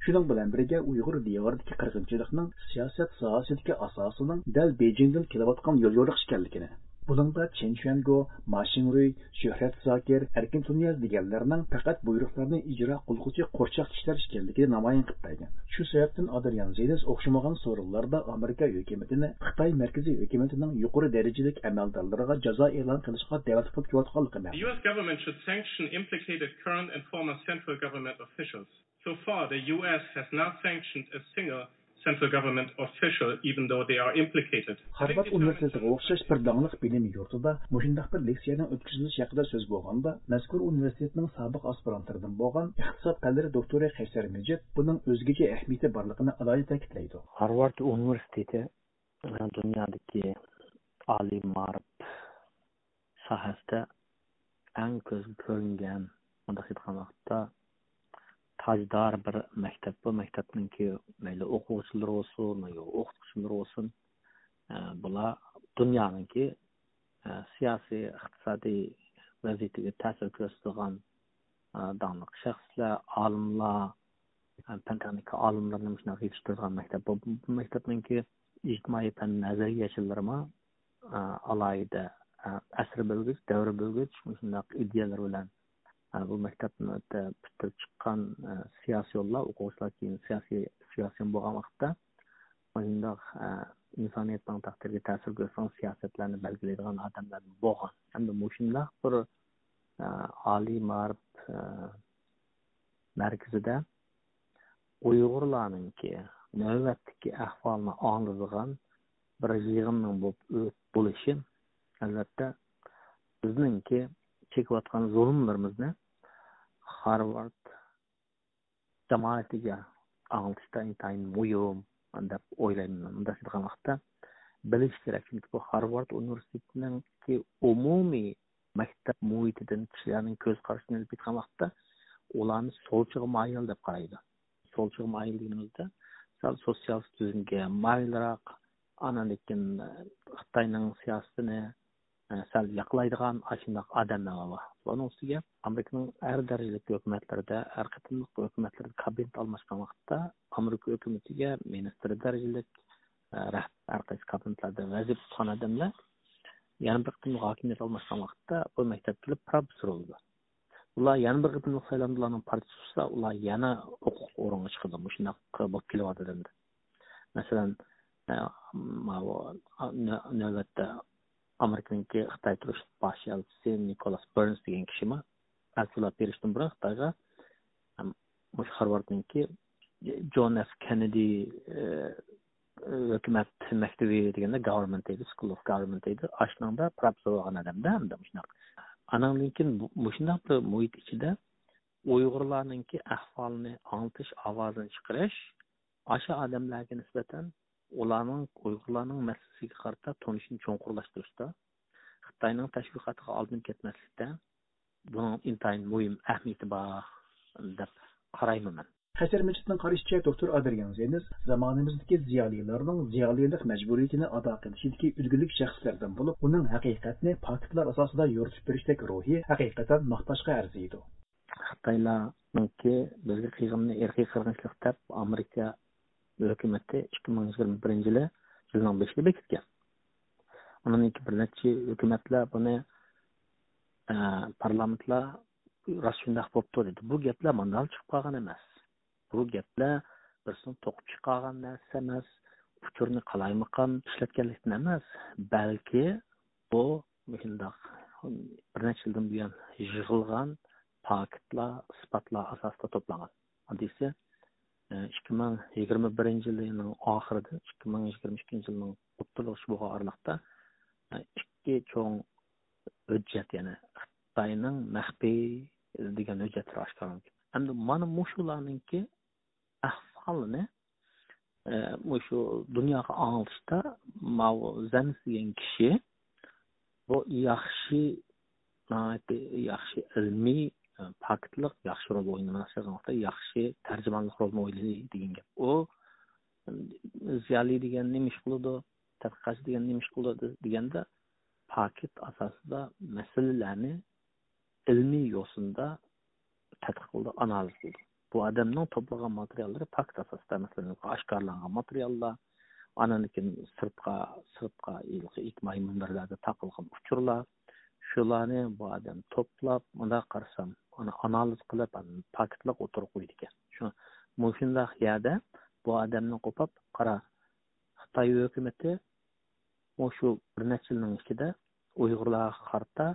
شۇنىڭ بىلەن بىرگە، ئۇيغۇر دىيارىدىكى قىرغىنچىلىقنىڭ سىياسەت ساھەسىدىكى ئاساسىنىڭ دەل بېيجىڭدىن كېلىۋاتقان يوليورۇق ئىكەنلىكىنى، بۇنىڭدا چېن شۈەنگو، ما شىڭرۇي، شۆھرەت زاكىر، ئەركىن تۇنىياز دېگەنلەرنىڭ پەقەت بۇيرۇقلارنى ئىجرا قىلغۇچى قورچاق كىشىلەر ئىكەنلىكىنى نامايان قىلىپ بەرگەن. شۇ سەۋەبتىن ئادرىيان زېنز ئوخشىمىغان سورۇنلاردا ئامېرىكا ھۆكۈمىتىنى خىتاي مەركىزىي ھۆكۈمىتىنىڭ يۇقىرى دەرىجىلىك ئەمەلدارلىرىغا جازا ئېلان قىلىشقا دەۋەت قىلىپ كېلىۋاتقانلىقى مەلۇم. The U S government should sanction implicated current and former central government officials. So far, the U S has not sanctioned a single central government official, even though they are implicated. خارۋارد ئۇنىۋېرسىتېتىغا ئوخشاش بىر داڭلىق بىلىم يۇرتىدا مۇشۇنداق بىر لېكسىيەنىڭ ئۆتكۈزۈلۈشى ھەققىدە سۆز بولغاندا، مەزكۇر ئۇنىۋېرسىتېتنىڭ سابىق ئاسپىرانتلىرىدىن بولغان ئىقتىساد پەنلىرى دوكتورى قەيسەر مىجىت بۇنىڭ ئۆزگىچە ئەھمىيىتى بارلىقىنى ئالاھىدە تەكىتلەيدۇ. خارۋارد ئۇنىۋېرسىتېتى دۇنيادىكى ئالىي مائارىپ ساھەسىدە ئەڭ كۆزگە كۆرۈنگەن، مۇنداق ئېيتقان ۋاقىتتا، تاجدار بىر مەكتەپ. بۇ مەكتەپنىڭكى مەيلى ئوقۇغۇچىلىرى بولسۇن، يا ئوقۇتقۇچىلىرى بولسۇن، ئە، بۇلار دۇنيانىڭكى، ئە، سىياسىي، ئىقتىسادىي ۋەزىيىتىگە تەسىر كۆرسىتىدىغان، ئە، داڭلىق شەخسلەر، ئالىملار، ئە، پەن تېخنىكا ئالىملىرىنى مۇشۇنداق يېتىشتۈرىدىغان مەكتەپ. بۇ، بۇ مەكتەپنىڭكى ئىجتىمائىي پەن نەزەرىيەچىلىرىمۇ، ئە، ئالاھىدە، ئە، ئەسىر بۆلگۈچ، دەۋر بۆلگۈچ مۇشۇنداق ئىدىيەلىرى بىلەن، ئە، بۇ مەكتەپنى پۈتتۈرۈپ چىققان، ئە، سىياسىيونلار، ئوقۇغۇچىلار كېيىن سىياسىي، سىياسىيون بولغان ۋاقىتتا مۇشۇنداق، ئە، ئىنسانىيەتنىڭ تەقدىرىگە تەسىر كۆرسىتىدىغان سىياسەتلەرنى بەلگىلەيدىغان ئادەملەردىن بولغان. ھەمدە مۇشۇنداق بىر، ئە، ئالىي مائارىپ، ئە، مەركىزىدە ئۇيغۇرلارنىڭكى نۆۋەتتىكى ئەھۋالىنى ئاڭلىتىدىغان بىر يىغىننىڭ بولۇپ، بولۇشى، ئەلۋەتتە، بىزنىڭكى چېكىۋاتقان زۇلۇملىرىمىزنى خارۋارد جامائىتىگە ئاڭلىتىشتا ئىنتايىن مۇھىم دەپ ئويلايمەن. مۇنداق دېگەن ۋاقىتتا بىلىش كېرەك، چۈنكى بۇ خارۋارد ئۇنىۋېرسىتېتىنىڭكى ئومۇمىي مەكتەپ مۇھىتىدىن كىشىلەرنىڭ كۆز قارىشىنى ئېلىپ ئېيتقان ۋاقىتتا، ئۇلارنى سولچىغا مايىل دەپ قارايدۇ. سولچىغا مايىل دېگىنىمىزدە، سەل سوتسىيالىست تۈزۈمگە مايىلراق، ئاندىن كېيىن خىتاينىڭ سىياسىتىنى، ئە، سەل ياقلايدىغان ئاشۇنداق ئادەملەر بار. بۇنىڭ ئۈستىگە ئامېرىكىنىڭ ھەر دەرىجىلىك ھۆكۈمەتلىرىدە، ھەر قېتىملىق ھۆكۈمەتلىرىدە كابىنېت ئالماشقان ۋاقىتتا ئامېرىكا ھۆكۈمىتىگە مىنىستىر دەرىجىلىك، ئە، رەھبەر، ھەر قايسى كابىنېتلاردا ۋەزىپە تۇتقان ئادەملەر يەنە بىر قېتىملىق ھاكىمىيەت ئالماشقان ۋاقىتتا بۇ مەكتەپكە كېلىپ پروفېسسور بولىدۇ. ئۇلار يەنە بىر قېتىملىق سايلامدا ئۇلارنىڭ پارتىيىسى ئۇتسا، ئۇلار يەنە ھوقۇقلۇق ئورۇنغا چىقىدۇ. مۇشۇنداق بولۇپ كېلىۋاتىدۇ ئەمدى. مەسىلەن، ئە، ماۋۇ، ئە، نۆ-، نۆۋەتتە ئامېرىكىنىڭكى خىتاي تۇرۇش باش ئەلچىسى نىكولاس بېرنس دېگەن كىشىمۇ ئەلچىلار بېرىشتىن بۇرۇن خىتايغا، ئەم، مۇشۇ خارۋاردنىڭكى جون ئېف كېننېدى، ئە، ھۆكۈمەت مەكتىۋى دېگەندە، گاۋېرمېنت دەيدۇ، سكۇل ئوف گاۋېرمېنت دەيدۇ. ئاشۇنىڭدا پروفېسسور بولغان ئادەمدە ئەمدى مۇشۇنداق. ئانىڭدىن كېيىن بۇ-، مۇشۇنداق بىر مۇھىت ئىچىدە ئۇيغۇرلارنىڭكى ئەھۋالىنى ئاڭلىتىش، ئاۋازىنى چىقىرىش، ئاشۇ ئادەملەرگە نىسبەتەن ئۇلارنىڭ، ئۇيغۇرلارنىڭ مەسىلىسىگە قارىتا تونۇشىنى چوڭقۇرلاشتۇرۇشتا، خىتاينىڭ تەشۋىقاتىغا ئالدىنىپ كەتمەسلىكتە بۇنىڭ ئىنتايىن مۇھىم ئەھمىيىتى بار دەپ قارايمەن مەن. قەيسەر مىجىتنىڭ قارىشىچە، دوكتور ئادرىيان زېنز زامانىمىزدىكى زىيالىيلارنىڭ زىيالىيلىق مەجبۇرىيىتىنى ئادا قىلىشىدىكى ئۈلگىلىك شەخسلەردىن بولۇپ، ئۇنىڭ ھەقىقەتنى پاكىتلار ئاساسىدا يورۇتۇپ بېرىشتەك روھى ھەقىقەتەن ماختاشقا ئەرزىيدۇ. خىتايلارنىڭكى بىزگە قىلغىنىنى ئىرقىي قىرغىنچىلىق دەپ، ئامېرىكا ھۆكۈمىتى ئىككى مىڭ يىگىرمە بىرىنچى يىلى، يىلنىڭ بېشىدا بېكىتكەن. ئۇنىڭدىن كېيىن بىر نەچچە ھۆكۈمەتلەر بۇنى، ئە، پارلامېنتلار راست شۇنداق بوپتۇ دېدى. بۇ گەپلەر ماندالا چىقىپ قالغان ئەمەس. بۇ گەپلەر بىرسىنىڭ توقۇپ چىقارغان نەرسىسى ئەمەس، ئۇچۇرنى قالايمىقان ئىشلەتكەنلىكتىن ئەمەس، بەلكى بۇ مۇشۇنداق بىر نەچچە يىلدىن بۇيان يىغىلغان پاكىتلار، ئىسپاتلار ئاساسىدا توپلانغان. ئاددىيسى، ئىككى مىڭ يىگىرمە بىرىنچى يىلىنىڭ ئاخىرىدىن ئىككى مىڭ يىگىرمە ئىككىنچى يىلنىڭ ئوتتۇرىلىغۇچە بولغان ئارىلىقتا، ئىككى چوڭ ھۆججەت، يەنى خىتاينىڭ مەخپىي دېگەن ھۆججەتلىرى ئاشكارىلانغان. ئەمدى مانا مۇشۇلارنىڭكى ئەھۋالىنى، ئە، مۇشۇ دۇنياغا ئاڭلىتىشتا ماۋۇ زېنز دېگەن كىشى بۇ ياخشى، ناھايىتى ياخشى ئىلمىي، ئە، پاكىتلىق ياخشى رول ئوينىماس، ياخشى تەرجىمانلىق رولىنى ئوينىدى دېگەن گەپ. ئۇ زىيالىي دېگەن نېمە ئىش قىلىدۇ، تەتقىقاتچى دېگەن نېمە ئىش قىلىدۇ دېگەندە، پاكىت ئاساسىدا مەسىلىلەرنى ئىلمىي يوسۇندا تەتقىق قىلىدۇ، ئانالىز قىلىدۇ. بۇ ئادەمنىڭ توپلىغان ماتېرىياللىرى پاكىت ئاساسىدا، مەسىلەن، ئاشكارىلانغان ماتېرىياللار، ئاندىن كېيىن سىرتقا، سىرتقا ھېلىقى ئىجتىمائىي مۇنبەرلەردە تارقالغان ئۇچۇرلار، شۇلارنى بۇ ئادەم توپلاپ، مۇنداق قارىسام، ئۇنى ئانالىز قىلىپ، ئاندىن پاكىتلىق ئوتتۇرىغا قويىدىكەن. شۇ، مۇشۇنداق يەردە بۇ ئادەمنى قوپاپ، قارا، خىتاي ھۆكۈمىتى مۇشۇ بىر نەچچە يىلنىڭ ئىچىدە ئۇيغۇرلارغا قارىتا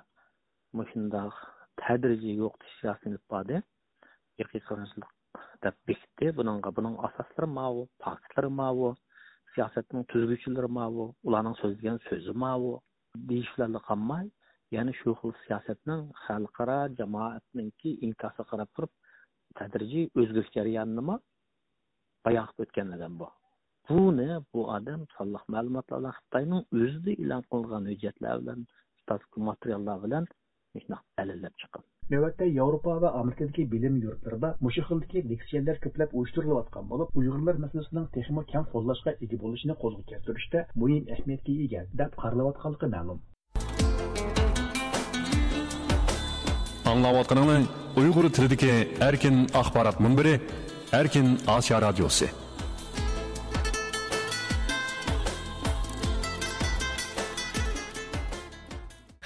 مۇشۇنداق تەدرىجىي يوقىتىش سىياسىتىنى ئېلىپ باردى. ئىرقىي قىرغىنچىلىق دەپ بېكىتتى. بۇنىڭغا، بۇنىڭ ئاساسلىرى ماۋۇ، پاكىتلىرى ماۋۇ، سىياسەتنىڭ تۈزگۈچىلىرى ماۋۇ، ئۇلارنىڭ سۆزلىگەن سۆزى ماۋۇ دېيىش بىلەنلا قالماي، يەنە شۇ خىل سىياسەتنىڭ خەلقئارا جامائەتنىڭكى ئىنكاسىغا قاراپ تۇرۇپ، تەدرىجىي ئۆزگىرىش جەريانىنىمۇ بايان قىلىپ ئۆتكەن ئادەم بۇ. بۇنى بۇ ئادەم سانلىق مەلۇماتلار بىلەن، خىتاينىڭ ئۆزىدە ئېلان قىلغان ھۆججەتلەر بىلەن، ستاتىستىك ماتېرىياللار بىلەن مۇشۇنداق دەلىللەپ چىققان. نۆۋەتتە ياۋروپا ۋە ئامېرىكىدىكى بىلىم يۇرتلىرىدا مۇشۇ خىلدىكى لېكسىيەلەر كۆپلەپ ئۇيۇشتۇرۇلۇۋاتقان بولۇپ، ئۇيغۇرلار مەسىلىسىنىڭ تېخىمۇ كەڭ قوللاشقا ئىگە بولۇشىنى قولغا كەلتۈرۈشتە مۇھىم ئەھمىيەتكە ئىگە، دەپ قارىلىۋاتقانلىقى مەلۇم. ئاڭلاۋاتقىنىڭلار ئۇيغۇر تىلىدىكى ئەركىن ئاخبارات مۇنبىرى، ئەركىن ئاسىيا رادىيوسى.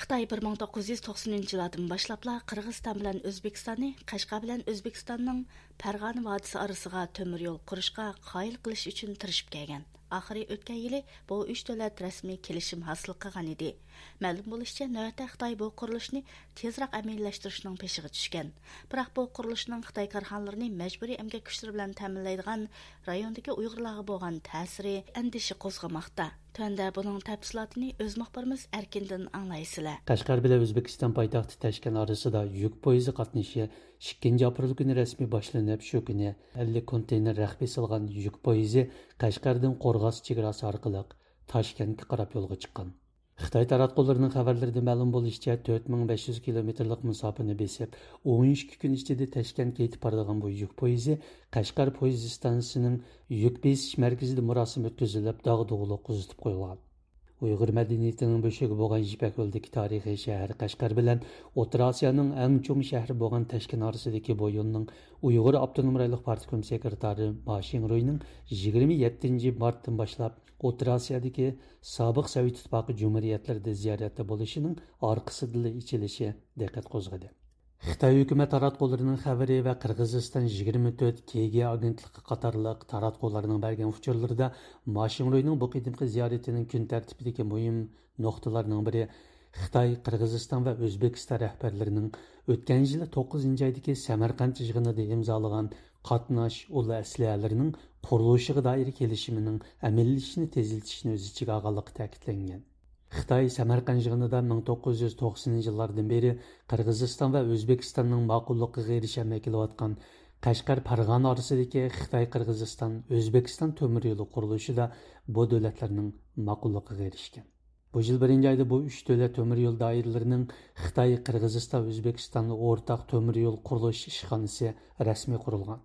خىتاي بىر مىڭ توققۇز يۈز توقسىنىنچى يىلاردىن باشلاپلا قىرغىزىستان بىلەن ئۆزبېكىستاننى قەشقەر بىلەن ئۆزبېكىستاننىڭ پەرغانە ۋادىسى ئارىسىغا تۆمۈر يول قۇرۇشقا قايىل قىلىش ئۈچۈن تىرىشىپ كەلگەن. ئاخىرى ئۆتكەن يىلى بۇ ئۈچ دۆلەت رەسمىي كېلىشىم ھاسىل قىلغان ئىدى. مەلۇم بولۇشىچە، نۆۋەتتە خىتاي بۇ قۇرۇلۇشنى تېزراق ئەمەلىيلەشتۈرۈشنىڭ پېشىغا چۈشكەن. بىراق بۇ قۇرۇلۇشنىڭ خىتاي كارخانىلىرىنى مەجبۇرىي ئەمگەك كۈچلىرى بىلەن تەمىنلەيدىغان رايوندىكى ئۇيغۇرلارغا بولغان تەسىرى ئەندىشە قوزغىماقتا. تۆۋەندە بۇنىڭ تەپسىلاتىنى ئۆز مۇخبىرىمىز ئەركىندىن ئاڭلايسىلەر. قەشقەر بىلەن ئۆزبېكىستان پايتەختى تاشكەنت ئارىسىدا يۈك پويىزى قاتنىشى ئىككىنچى ئاپرېل كۈنى رەسمىي باشلىنىپ، شۇ كۈنى ئەللىك كونتېينېر رەخپە سالغان يۈك پويىزى قەشقەردىن قورغاس چېگراسى ئارقىلىق تاشكەنتكە قاراپ يولغا چىققان. خىتاي تاراتقۇلىرىنىڭ خەۋەرلىرىدە مەلۇم بولۇشىچە، تۆت مىڭ بەش يۈز كىلومېتىرلىق مۇساپىنى بېسىپ، ئون ئىككى كۈن ئىچىدە تاشكەنتكە يېتىپ بارىدىغان بۇ يۈك پويىزى قەشقەر پويىز ئىستانسىسىنىڭ يۈك بېسىش مەركىزىدە مۇراسىم ئۆتكۈزۈلۈپ، داغدۇغىلىق قىزىتىپ قويۇلغان. ئۇيغۇر مەدەنىيىتىنىڭ بۆشۈكى بولغان يىپەك يولىدىكى تارىخىي شەھەر قەشقەر بىلەن ئوتتۇرا ئاسىيانىڭ ئەڭ چوڭ شەھىرى بولغان تاشكەنت ئارىسىدىكى بۇ يولنىڭ ئۇيغۇر ئاپتونوم رايونلۇق پارتكوم سېكرېتارى ما شىڭرۇينىڭ يىگىرمە يەتتىنچى مارتتىن باشلاپ ئوتتۇرا ئاسىيادىكى سابىق سوۋېت ئىتتىپاقى جۇمھۇرىيەتلىرىدە زىيارەتتە بولۇشىنىڭ ئارقىسىدىنلا ئېچىلىشى دىققەت قوزغىدى. خىتاي ھۆكۈمەت تاراتقۇلىرىنىڭ خەۋىرى ۋە قىرغىزىستان يىگىرمە تۆت كې گې ئاگېنتلىقى قاتارلىق تاراتقۇلارنىڭ بەرگەن ئۇچۇرلىرىدا ما شىڭرۇينىڭ بۇ قېتىمقى زىيارىتىنىڭ كۈن تەرتىپىدىكى مۇھىم نۇقتىلارنىڭ بىرى خىتاي، قىرغىزىستان ۋە ئۆزبېكىستان رەھبەرلىرىنىڭ ئۆتكەن يىلى توققۇزىنچى ئايدىكى سەمەرقەنت يىغىنىدا ئىمزالىغان قاتناش ئۇل ئەسلىھەلىرىنىڭ قۇرۇلۇشىغا دائىر كېلىشىمىنىڭ ئەمەلىيلىشىشىنى تېزلىتىشنى ئۆز ئىچىگە ئالغانلىقى تەكىتلەنگەن. خىتاي سەمەرقەنت يىغىنىدا مىڭ توققۇز يۈز توقسىنىنچى يىللاردىن بېرى قىرغىزىستان ۋە ئۆزبېكىستاننىڭ ماقۇللۇقىغا ئېرىشەلمەي كېلىۋاتقان قەشقەر، پەرغانە ئارىسىدىكى خىتاي، قىرغىزىستان، ئۆزبېكىستان تۆمۈر يولى قۇرۇلۇشىدا بۇ دۆلەتلەرنىڭ ماقۇللۇقىغا ئېرىشكەن. بۇ يىل بىرىنچى ئايدا بۇ ئۈچ دۆلەت تۆمۈر يول دائىرىلىرىنىڭ خىتاي، قىرغىزىستان، ئۆزبېكىستاندا ئورتاق تۆمۈر يول قۇرۇلۇش ئىشخانىسى رەسمىي قۇرۇلغان.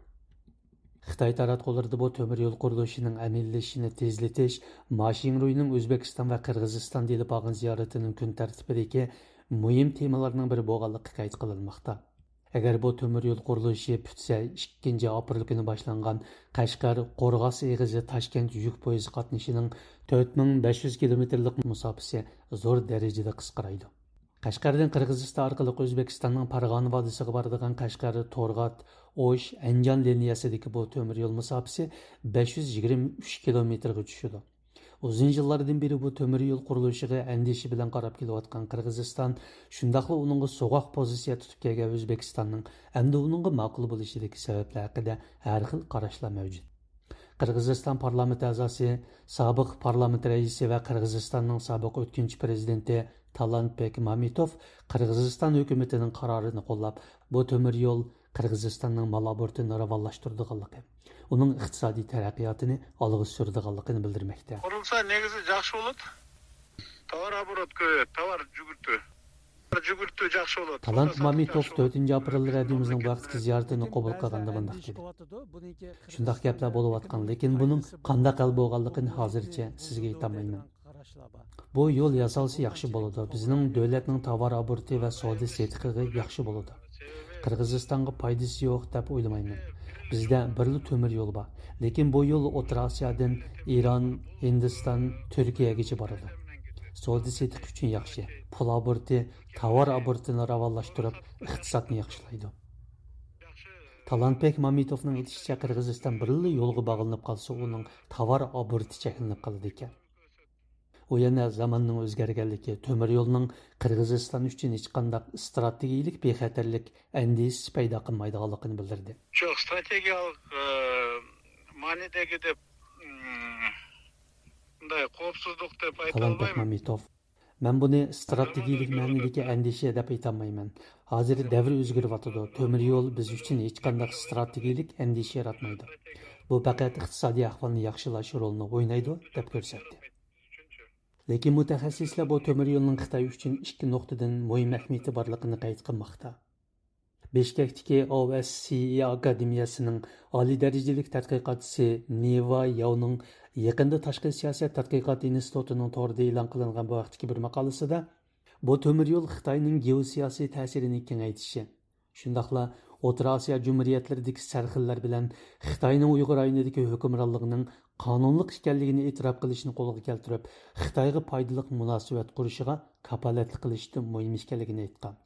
خىتاي تاراتقۇلىرىدا بۇ تۆمۈر يول قۇرۇلۇشىنىڭ ئەمەلىيلىشىشىنى تېزلىتىش ما شىڭرۇينىڭ ئۆزبېكىستان ۋە قىرغىزىستاندا ئېلىپ بارغان زىيارىتىنىڭ كۈن تەرتىپىدىكى مۇھىم تېمىلارنىڭ بىرى بولغانلىقى قەيت قىلىنماقتا. ئەگەر بۇ تۆمۈر يول قۇرۇلۇشى پۈتسە، ئىككىنچى ئاپرېل كۈنى باشلانغان قەشقەر، قورغاس ئېغىزى، تاشكەنت يۈك پويىزى قاتنىشىنىڭ تۆت مىڭ بەش يۈز كىلومېتىرلىق مۇساپىسى زور دەرىجىدە قىسقىرايدۇ. قەشقەردىن قىرغىزىستان ئارقىلىق ئۆزبېكىستاننىڭ پارغانە ۋادىسىغا بارىدىغان قەشقەر، تورغات، ئوش، ئەنجان لىنىيەسىدىكى بۇ تۆمۈر يول مۇساپىسى بەش يۈز يىگىرمە ئۈچ كىلومېتىرغا چۈشىدۇ. ئۇزۇن يىللاردىن بېرى بۇ تۆمۈر يول قۇرۇلۇشىغا ئەندىشە بىلەن قاراپ كېلىۋاتقان قىرغىزىستان شۇنداقلا ئۇنىڭغا سوغۇق پوزىتسىيە تۇتۇپ كەلگەن ئۆزبېكىستاننىڭ ئەمدى ئۇنىڭغا ماقۇل بولۇشىدىكى سەۋەبلەر ھەققىدە ھەر خىل قاراشلار مەۋجۇت. قىرغىزىستان پارلامېنت ئەزاسى، سابىق پارلامېنت رەئىسى ۋە قىرغىزىستاننىڭ سابىق ئۆتكۈنچى پىرېزىدېنتى تالانتبېك مامىتوف قىرغىزىستان ھۆكۈمىتىنىڭ قارارىنى قوللاپ، بۇ تۆمۈر يول قىرغىزىستاننىڭ مال ئوبوروتىنى راۋانلاشتۇرىدىغانلىقى، ئۇنىڭ ئىقتىسادىي تەرەققىياتىنى ئالغا سۈرىدىغانلىقىنى بىلدۈرمەكتە. قۇرۇلسا نېگىزى ياخشى بولىدۇ. تاۋار ئوبوروت كۆپىيەتتى، تاۋار جۈگۈرتۈ. جۈگۈرتۈ ياخشى بولىدۇ. تالانت مامىتوف تۆتىنچى ئاپرېل رادىيومىزنىڭ بۇ ھەقتىكى زىيارىتىنى قوبۇل قىلغاندا مۇنداق دېدى: شۇنداق گەپلەر بولۇۋاتقان، لېكىن بۇنىڭ قانداق ھەل بولغانلىقىنى ھازىرچە سىزگە ئېيتالمايمەن. بۇ يول ياسالسا ياخشى بولىدۇ. بىزنىڭ دۆلەتنىڭ تاۋار ئوبوروتى ۋە سودا سېتىقىغا ياخشى بولىدۇ. قىرغىزىستانغا پايدىسى يوق دەپ ئويلىمايمەن. بىزدە بىرلا تۆمۈر يول بار. لېكىن بۇ يول ئوتتۇرا ئاسىيادىن ئىران، ھىندىستان، تۈركىيەگىچە بارىدۇ. سودا سېتىق ئۈچۈن ياخشى. پۇل ئوبوروتى، تاۋار ئوبوروتىنى راۋانلاشتۇرۇپ، ئىقتىسادنى ياخشىلايدۇ. تالانتبېك مامىتوفنىڭ ئېيتىشىچە، قىرغىزىستان بىرلا يولغا باغلىنىپ قالسا، ئۇنىڭ تاۋار ئوبوروتى چەكلىنىپ قالىدىكەن. ئۇ يەنە زاماننىڭ ئۆزگەرگەنلىكى، تۆمۈر يولنىڭ قىرغىزىستان ئۈچۈن ھېچقانداق ئىستراتېگىيىلىك بىخەتەرلىك ئەندىشىسى پەيدا قىلمايدىغانلىقىنى بىلدۈردى. شۇ ئىستراتېگىيەلىك، ئى، مەنىدىكى دەپ، ئىم، بۇنداق خەۋپسىزلىك دەپ تالانت ئېيتالمايمەن. بەكمەمبېتوف، مەن بۇنى ئىستراتېگىيىلىك مەنىدىكى ئەندىشە دەپ ئېيتالمايمەن. ھازىر دەۋر ئۆزگىرىۋاتىدۇ. تۆمۈر يول بىز ئۈچۈن ھېچقانداق ئىستراتېگىيىلىك ئەندىشە ياراتمايدۇ. بۇ پەقەت ئىقتىسادىي ئەھۋالنى ياخشىلاش رولىنى ئوينايدۇ، دەپ كۆرسەتتى. لېكىن مۇتەخەسسىسلەر بۇ تۆمۈر يولنىڭ خىتاي ئۈچۈن ئىككى نۇقتىدىن مۇھىم ئەھمىيىتى بارلىقىنى قەيت قىلماقتا. بىشكەكتىكى ئو ئەس سى ئى ئاكادېمىيەسىنىڭ ئالىي دەرىجىلىك تەتقىقاتچىسى نىۋا ياۋنىڭ يېقىندا تاشقى سىياسەت تەتقىقات ئىنستىتۇتىنىڭ تورىدا ئېلان قىلىنغان بۇ ھەقتىكى بىر ماقالىسىدا، بۇ تۆمۈر يول خىتاينىڭ گېئوسىياسىي تەسىرىنى كېڭەيتىشى، شۇنداقلا ئوتتۇرا ئاسىيا جۇمھۇرىيەتلىرىدىكى سەرخىللەر بىلەن خىتاينىڭ ئۇيغۇر رايونىدىكى ھۆكۈمرانلىقىنىڭ قانۇنلۇق ئىكەنلىكىنى ئېتىراپ قىلىشنى قولغا كەلتۈرۈپ، خىتايغا پايدىلىق مۇناسىۋەت قۇرۇشىغا كاپالەتلىك قىلىشتا مۇھىم ئىكەنلىكىنى ئېيتقان.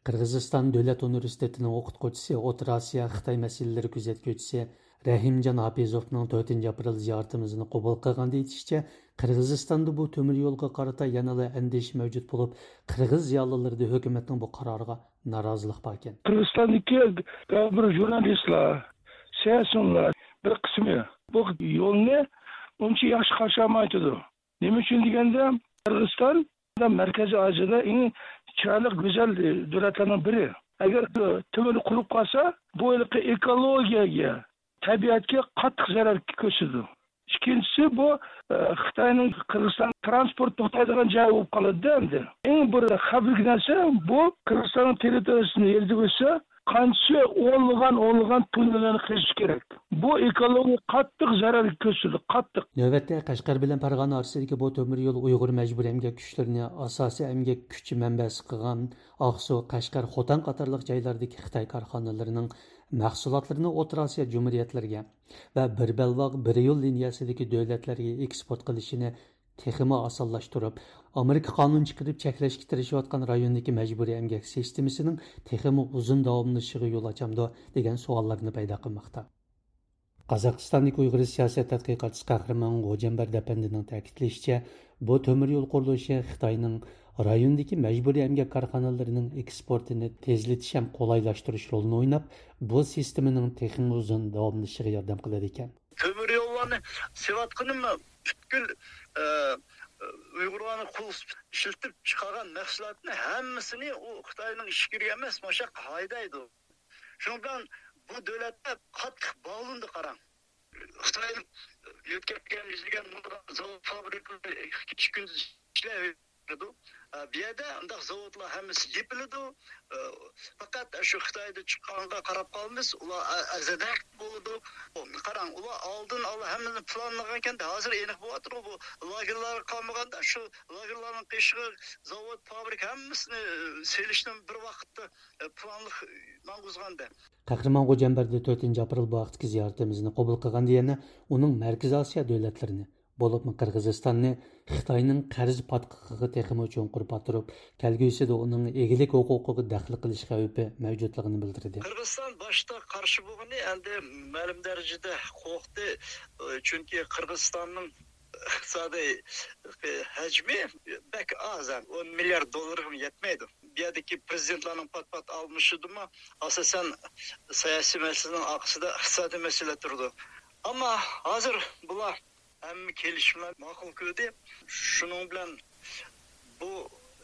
قىرغىزىستان دۆلەت ئۇنىۋېرسىتېتىنىڭ ئوقۇتقۇچىسى، ئوتتۇرا ئاسىيا خىتاي مەسىلىلىرى كۆزەتكۈچىسى رەھىمجان ھاپىزوفنىڭ تۆتىنچى ئاپرېل زىيارىتىمىزنى قوبۇل قىلغاندا ئېيتىشىچە، قىرغىزىستاندا بۇ تۆمۈر يولغا قارىتا يەنىلا ئەندىشە مەۋجۇت بولۇپ، قىرغىز زىيالىيلىرىدا ھۆكۈمەتنىڭ بۇ قارارىغا نارازىلىق باركەن. قىرغىزىستاندىكى بىر ژۇرنالىستلار، سىياسىيونلار بىر قىسمى بۇ يولنى ئۇنچە ياخشى قارشى ئالمايتىدۇ. نېمە ئۈچۈن دېگەندە، قىرغىزىستان مەركىزىي ئاسىيادا ئەڭ چىرايلىق، گۈزەل دۆلەتلەرنىڭ بىرى. ئەگەر تۆمۈر قۇرۇپ قالسا، بۇ ھېلىقى ئېكولوگىيەگە، تەبىئەتكە قاتتىق زەرەر كۆرسىتىدۇ. ئىككىنچىسى، بۇ، ئە، خىتاينىڭ قىرغىزىستان تىرانسپورت توختايدىغان جايى بولۇپ قالىدۇ ئەمدى. ئەڭ بىر خەۋپلىك نەرسە، بۇ قىرغىزىستاننىڭ تېررىتورىيىسىنى يېرىدە بولسا، قانچە ئونلىغان، ئونلىغان توننىلارنى قېزىش كېرەك. بۇ ئېكولوگىيەگە قاتتىق زەرەر كۆرسىتىدۇ، قاتتىق. نۆۋەتتە، قەشقەر بىلەن پەرغانە ئارىسىدىكى بۇ تۆمۈر يول ئۇيغۇر مەجبۇرىي ئەمگەك كۈچلىرىنى ئاساسىي ئەمگەك كۈچى مەنبەسى قىلغان ئاقسۇ، قەشقەر، خوتەن قاتارلىق جايلاردىكى خىتاي كارخانىلىرىنىڭ مەھسۇلاتلىرىنى ئوتتۇرا ئاسىيا جۇمھۇرىيەتلىرىگە ۋە بىر بەلباغ، بىر يول لىنىيەسىدىكى دۆلەتلەرگە ئېكسپورت قىلىشىنى تېخىمۇ ئاسانلاشتۇرۇپ، ئامېرىكا قانۇن چىقىرىپ چەكلەشكە تىرىشىۋاتقان رايوندىكى مەجبۇرىي ئەمگەك سىستېمىسىنىڭ تېخىمۇ ئۇزۇن داۋاملىشىشىغا يول ئاچامدۇ، دېگەن سوئاللارنى پەيدا قىلماقتا. قازاقىستاندىكى ئۇيغۇر سىياسەت تەتقىقاتچىسى قەھرىمان غوجەمبەردى ئەپەندىنىڭ تەكىتلىشىچە، بۇ تۆمۈر يول قۇرۇلۇشى خىتاينىڭ رايوندىكى مەجبۇرىي ئەمگەك كارخانىلىرىنىڭ ئېكسپورتىنى تېزلىتىش ھەم قولايلاشتۇرۇش رولىنى ئويناپ، بۇ سىستېمىنىڭ تېخىمۇ ئۇزۇن داۋاملىشىشىغا ياردەم قىلىدىكەن. تۆمۈر يوللارنى سېلىۋاتقىنىمۇ پۈتكۈل، ئە، ئۇيغۇرلارنى قول ئىشلىتىپ چىقارغان مەھسۇلاتنى ھەممىسىنى ئۇ خىتاينىڭ ئىچكىرىگە ئەمەس، مانا شۇ ياققا ھەيدەيدۇ. شۇنىڭ بىلەن بۇ دۆلەتلەر قاتتىق باغلىنىدۇ، قاراڭ. خىتاي يۆتكەپ كەلگەن يۈزلىگەن مىڭلىغان زاۋۇت، فابرىكىلار ئىككى كۈندە ئىشلەۋېرىدۇ. ئە، بۇ يەردە ئۇنداق زاۋۇتلار ھەممىسى يېپىلىدۇ. ئە، پەقەت شۇ خىتايدا چىققانغا قاراپ قالىمىز. ئۇلار ئە-، ئەزەدە بولىدۇ. قاراڭ، ئۇلار ئالدىن ئالا ھەممىنى پىلانلىغانكەن، ھازىر ئېنىق بولۇۋاتىدۇ. بۇ لاگېرلارغا قالمىغاندا، شۇ لاگېرلارنىڭ قېشىغا زاۋۇت، فابرىكا ھەممىسىنى، ئە، سېلىشنى بىر ۋاقىتتا، ئە، پىلانلىق ماڭغۇزغاندا. قەھرىمان غوجەمبەردى تۆتىنچى ئاپرېل بۇ ھەقتىكى زىيارىتىمىزنى قوبۇل قىلغاندا يەنە ئۇنىڭ مەركىزىي ئاسىيا دۆلەتلىرىنى، بولۇپمۇ قىرغىزىستاننى خىتاينىڭ قەرز پاتقىقىغا تېخىمۇ چوڭقۇر پاتۇرۇپ، كەلگۈسىدە ئۇنىڭ ئىگىلىك ھوقۇقىغا دەخلى قىلىش خەۋپى مەۋجۇتلۇقىنى بىلدۈردى. قىرغىزىستان باشتا قارشى بولغىنى، ئەمدى مەلۇم دەرىجىدە قورقتى. چۈنكى قىرغىزىستاننىڭ ئىقتىسادىي ھەجمى بەك ئاز، ئون مىليارد دوللارغىمۇ يەتمەيدۇ. بۇ يەردىكى پرېزىدېنتلارنىڭ پات-پات ئالمىشىشىدىمۇ ئاساسەن سىياسىي مەسىلىنىڭ ئارقىسىدا ئىقتىسادىي مەسىلە تۇرىدۇ. ئەمما ھازىر بۇلار ھەممە كېلىشىملەرنى ماقۇل كۆردى. شۇنىڭ بىلەن بۇ،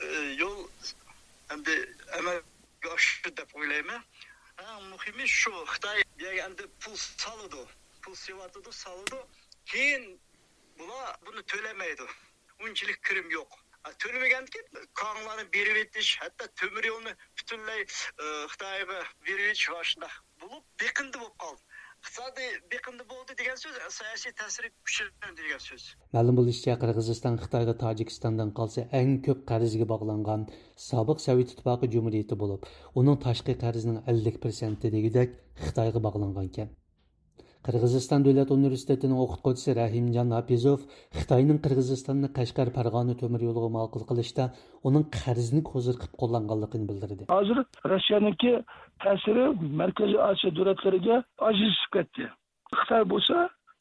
ئى، يول ئەمدى ئەمەلگە ئاشتى دەپ ئويلايمەن. ئەڭ مۇھىمى شۇ، خىتاي بۇ يەرگە ئەمدى پۇل سالىدۇ، پۇل سېلىۋاتىدۇ، سالىدۇ. كېيىن بۇلار بۇنى تۆلىمەيدۇ. ئۇنچىلىك كىرىم يوق. ئا، تۆلىمىگەندىكىن كاڭلارنى بېرىۋېتىش، ھەتتا تۆمۈر يولنى پۈتۈنلەي، ئى، خىتايغا بېرىۋېتىش ۋە شۇنداق بولۇپ، بېقىندى بولۇپ قالدى. ئىقتىسادىي بېقىندى بولدى دېگەن سۆز، سىياسىي تەسىرى كۈچلەندى دېگەن سۆز. مەلۇم بولۇشىچە، قىرغىزىستان خىتايغا تاجىكىستاندىن قالسا ئەڭ كۆپ قەرزگە باغلانغان سابىق سوۋېت ئىتتىپاقى جۇمھۇرىيىتى بولۇپ، ئۇنىڭ تاشقى قەرزىنىڭ ئەللىك پىرسەنتى دېگۈدەك خىتايغا باغلانغانىكەن. قىرغىزىستان دۆلەت ئۇنىۋېرسىتېتىنىڭ ئوقۇتقۇچىسى رەھىمجان ھاپىزوف خىتاينىڭ قىرغىزىستاننى قەشقەر پەرغانە تۆمۈر يولىغا ماقۇل قىلىشتا ئۇنىڭ قەرزنى كوزىر قىلىپ قوللانغانلىقىنى بىلدۈردى. ھازىر روسىيەنىڭكى تەسىرى مەركىزىي ئاسىيا دۆلەتلىرىگە ئاجىزلىشىپ كەتتى. خىتاي بولسا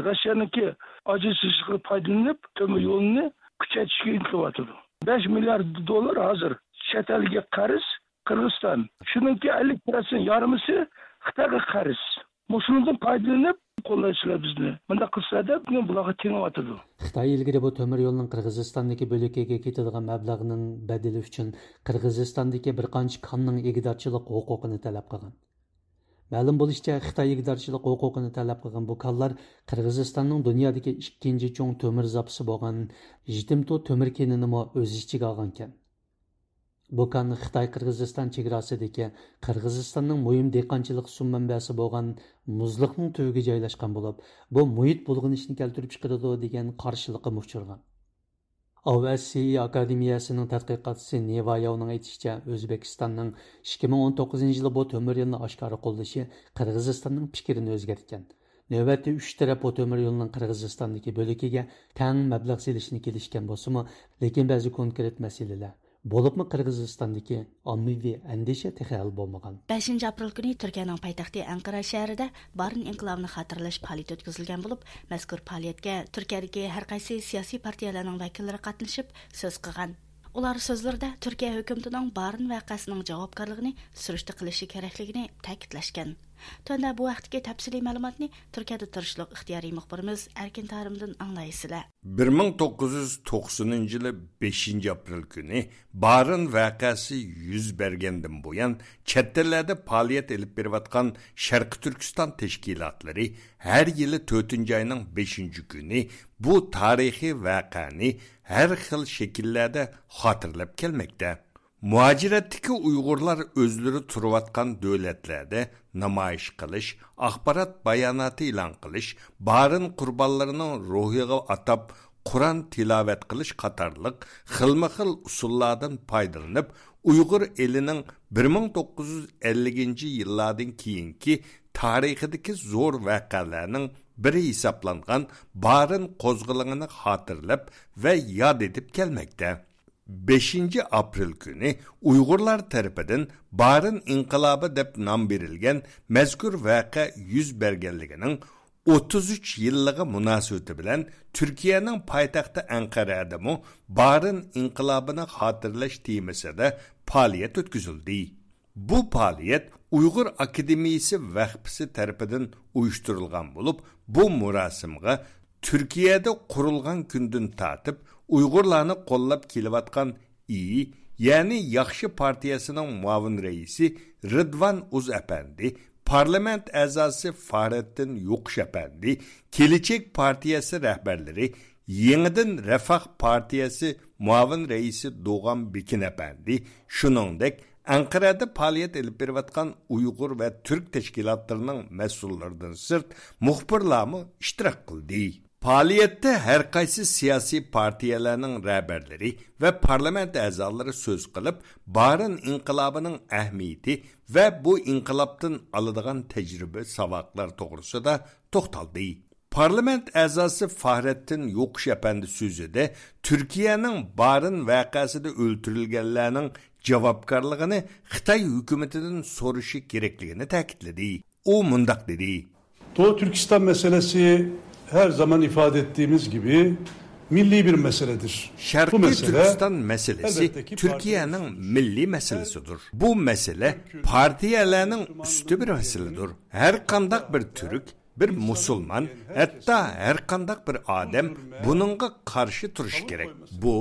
روسىيەنىڭكى ئاجىزلىشىشىغا پايدىلىنىپ، تۆمۈر يولىنى كۈچەيتىشكە ئىنتىلىۋاتىدۇ. بەش مىليارد دوللار ھازىر چەت ئەلگە قەرز قىرغىزىستان. شۇنىڭكى ئەللىك پىرسەنت يارىمىسى خىتايغا قەرز. مۇشۇنىڭدىن پايدىلىنىپ قوللايسىلەر بىزنى. مۇنداق قىلسىلەر دەپ بۇلارغا تېڭىۋاتىدۇ. خىتاي ئىلگىرى بۇ تۆمۈر يولنىڭ قىرغىزىستاندىكى بۆلىكىگە كېتىدىغان مەبلەغنىڭ بەدىلى ئۈچۈن قىرغىزىستاندىكى بىر قانچە كاننىڭ ئىگىدارچىلىق ھوقۇقىنى تەلەپ قىلغان. مەلۇم بولۇشىچە، خىتاي ئىگىدارچىلىق ھوقۇقىنى تەلەپ قىلغان بۇ كانلار قىرغىزىستاننىڭ دۇنيادىكى ئىككىنچى چوڭ تۆمۈر زاپىسى بولغان ژىتىمتو تۆمۈر كېنىنىمۇ ئۆز ئىچىگە ئالغانىكەن. بۇ كان خىتاي قىرغىزىستان چېگراسىدىكى، قىرغىزىستاننىڭ مۇھىم دېھقانچىلىق سۇ مەنبەسى بولغان مۇزلۇقنىڭ تۈۋىگە جايلاشقان بولۇپ، بۇ مۇھىت بۇلغىنىشىنى كەلتۈرۈپ چىقىرىدۇ دېگەن قارشىلىققىمۇ ئۇچرىغان. ئاۋ ئەس سىي ئاكادېمىيەسىنىڭ تەتقىقاتچىسى نېۋاياۋنىڭ ئېيتىشىچە، ئۆزبېكىستاننىڭ ئىككى مىڭ ئون توققۇزىنچى يىلى بۇ تۆمۈر يولنى ئاشكارا قوللىشى قىرغىزىستاننىڭ پىكرىنى ئۆزگەرتكەن. نۆۋەتتە ئۈچ تەرەپ بۇ تۆمۈر يولنىڭ قىرغىزىستاندىكى بۆلىكىگە تەڭ مەبلەغ سېلىشنى كېلىشكەن بولسىمۇ، لېكىن بەزى كونكرېت مەسىلىلەر، بولۇپمۇ قىرغىزىستاندىكى ئاممىۋى ئەندىشە تېخى ھەل بولمىغان. بەشىنچى ئاپرېل كۈنى تۈركىيەنىڭ پايتەختى ئەنقەرە شەھىرىدە بارىن ئىنقىلابىنى خاتىرىلەش پائالىيىتى ئۆتكۈزۈلگەن بولۇپ، مەزكۇر پائالىيەتكە تۈركىيەدىكى ھەر قايسى سىياسىي پارتىيەلەرنىڭ ۋەكىللىرى قاتنىشىپ سۆز قىلغان. ئۇلار سۆزلىرىدە تۈركىيە ھۆكۈمىتىنىڭ بارىن ۋەقەسىنىڭ جاۋابكارلىقىنى سۈرۈشتە قىلىشى كېرەكلىكىنى تەكىتلەشكەن. تۆۋەندە بۇ ھەقتىكى تەپسىلىي مەلۇماتنى تۈركىيەدە تۇرۇشلۇق ئىختىيارىي مۇخبىرىمىز ئەركىن تارىمدىن ئاڭلايسىلەر. بىر مىڭ توققۇز يۈز توقسىنىنچى يىلى بەشىنچى ئاپرېل كۈنى بارىن ۋەقەسى يۈز بەرگەندىن بۇيان، چەت ئەللەردە پائالىيەت ئېلىپ بېرىۋاتقان شەرقىي تۈركىستان تەشكىلاتلىرى ھەر يىلى تۆتىنچى ئاينىڭ بەشىنچى كۈنى بۇ تارىخىي ۋەقەنى ھەر خىل شەكىللەردە خاتىرىلەپ كەلمەكتە. مۇھاجىرەتتىكى ئۇيغۇرلار ئۆزلىرى تۇرۇۋاتقان دۆلەتلەردە نامايىش قىلىش، ئاخبارات باياناتى ئېلان قىلىش، بارىن قۇربانلىرىنىڭ روھىغا ئاتاپ قۇرئان تىلاۋەت قىلىش قاتارلىق خىلمۇ خىل ئۇسۇللاردىن پايدىلىنىپ، ئۇيغۇر ئېلىنىڭ بىر مىڭ توققۇز يۈز ئەللىكىنچى يىللاردىن كېيىنكى تارىخىدىكى زور ۋەقەلەرنىڭ بىرى ھېسابلانغان بارىن قوزغىلىڭىنى خاتىرىلەپ ۋە ياد ئېتىپ كەلمەكتە. بەشىنچى ئاپرېل كۈنى ئۇيغۇرلار تەرىپىدىن بارىن ئىنقىلابى دەپ نام بېرىلگەن مەزكۇر ۋەقە يۈز بەرگەنلىكىنىڭ ئوتتۇز ئۈچ يىللىقى مۇناسىۋىتى بىلەن تۈركىيەنىڭ پايتەختى ئەنقەرەدىمۇ بارىن ئىنقىلابىنى خاتىرىلەش تېمىسىدا پائالىيەت ئۆتكۈزۈلدى. بۇ پائالىيەت ئۇيغۇر ئاكادېمىيىسى ۋەخپىسى تەرىپىدىن ئۇيۇشتۇرۇلغان بولۇپ، بۇ مۇراسىمغا تۈركىيەدە قۇرۇلغان كۈندىن تارتىپ ئۇيغۇرلارنى قوللاپ كېلىۋاتقان ئىي، يەنى ياخشى پارتىيەسىنىڭ مۇئاۋىن رەئىسى رىدۋان ئۇز ئەپەندى، پارلامېنت ئەزاسى فارەتتىن يوقۇش ئەپەندى، كېلىچەك پارتىيەسى رەھبەرلىرى، يېڭىدىن رەفاھ پارتىيەسى مۇئاۋىن رەئىسى دوغان بېكىن ئەپەندى، شۇنىڭدەك ئەنقەرەدە پائالىيەت ئېلىپ بېرىۋاتقان ئۇيغۇر ۋە تۈرك تەشكىلاتلىرىنىڭ مەسئۇللىرىدىن سىرت مۇخبىرلارمۇ ئىشتىراك قىلدى. پائالىيەتتە ھەر قايسى سىياسىي پارتىيەلەرنىڭ رەھبەرلىرى ۋە پارلامېنت ئەزالىرى سۆز قىلىپ، بارىن ئىنقىلابىنىڭ ئەھمىيىتى ۋە بۇ ئىنقىلابتىن ئالىدىغان تەجرىبە، ساۋاقلار توغرىسىدا توختالدى. پارلامېنت ئەزاسى فاھرەتتىن يوقۇش ئەپەندى سۆزىدە تۈركىيەنىڭ بارىن ۋەقەسىدە ئۆلتۈرۈلگەنلەرنىڭ جاۋابكارلىقىنى خىتاي ھۆكۈمىتىدىن سورىشى كېرەكلىكىنى تەكىتلىدى. ئۇ مۇنداق دېدى. Doğu Türkistan meselesi her zaman ifade ettiğimiz gibi milli bir meseledir. Bu شەرقىي mesele تۈركىستان مەسىلىسى تۈركىيەنىڭ مىللىي مەسىلىسىدۇر. بۇ مەسىلە پارتىيەلەرنىڭ ئۈستى بىر مەسىلىدۇر. ھەر قانداق بىر تۈرك، بىر مۇسۇلمان، ھەتتا ھەر قانداق بىر ئادەم بۇنىڭغا قارشى تۇرۇشى كېرەك. بۇ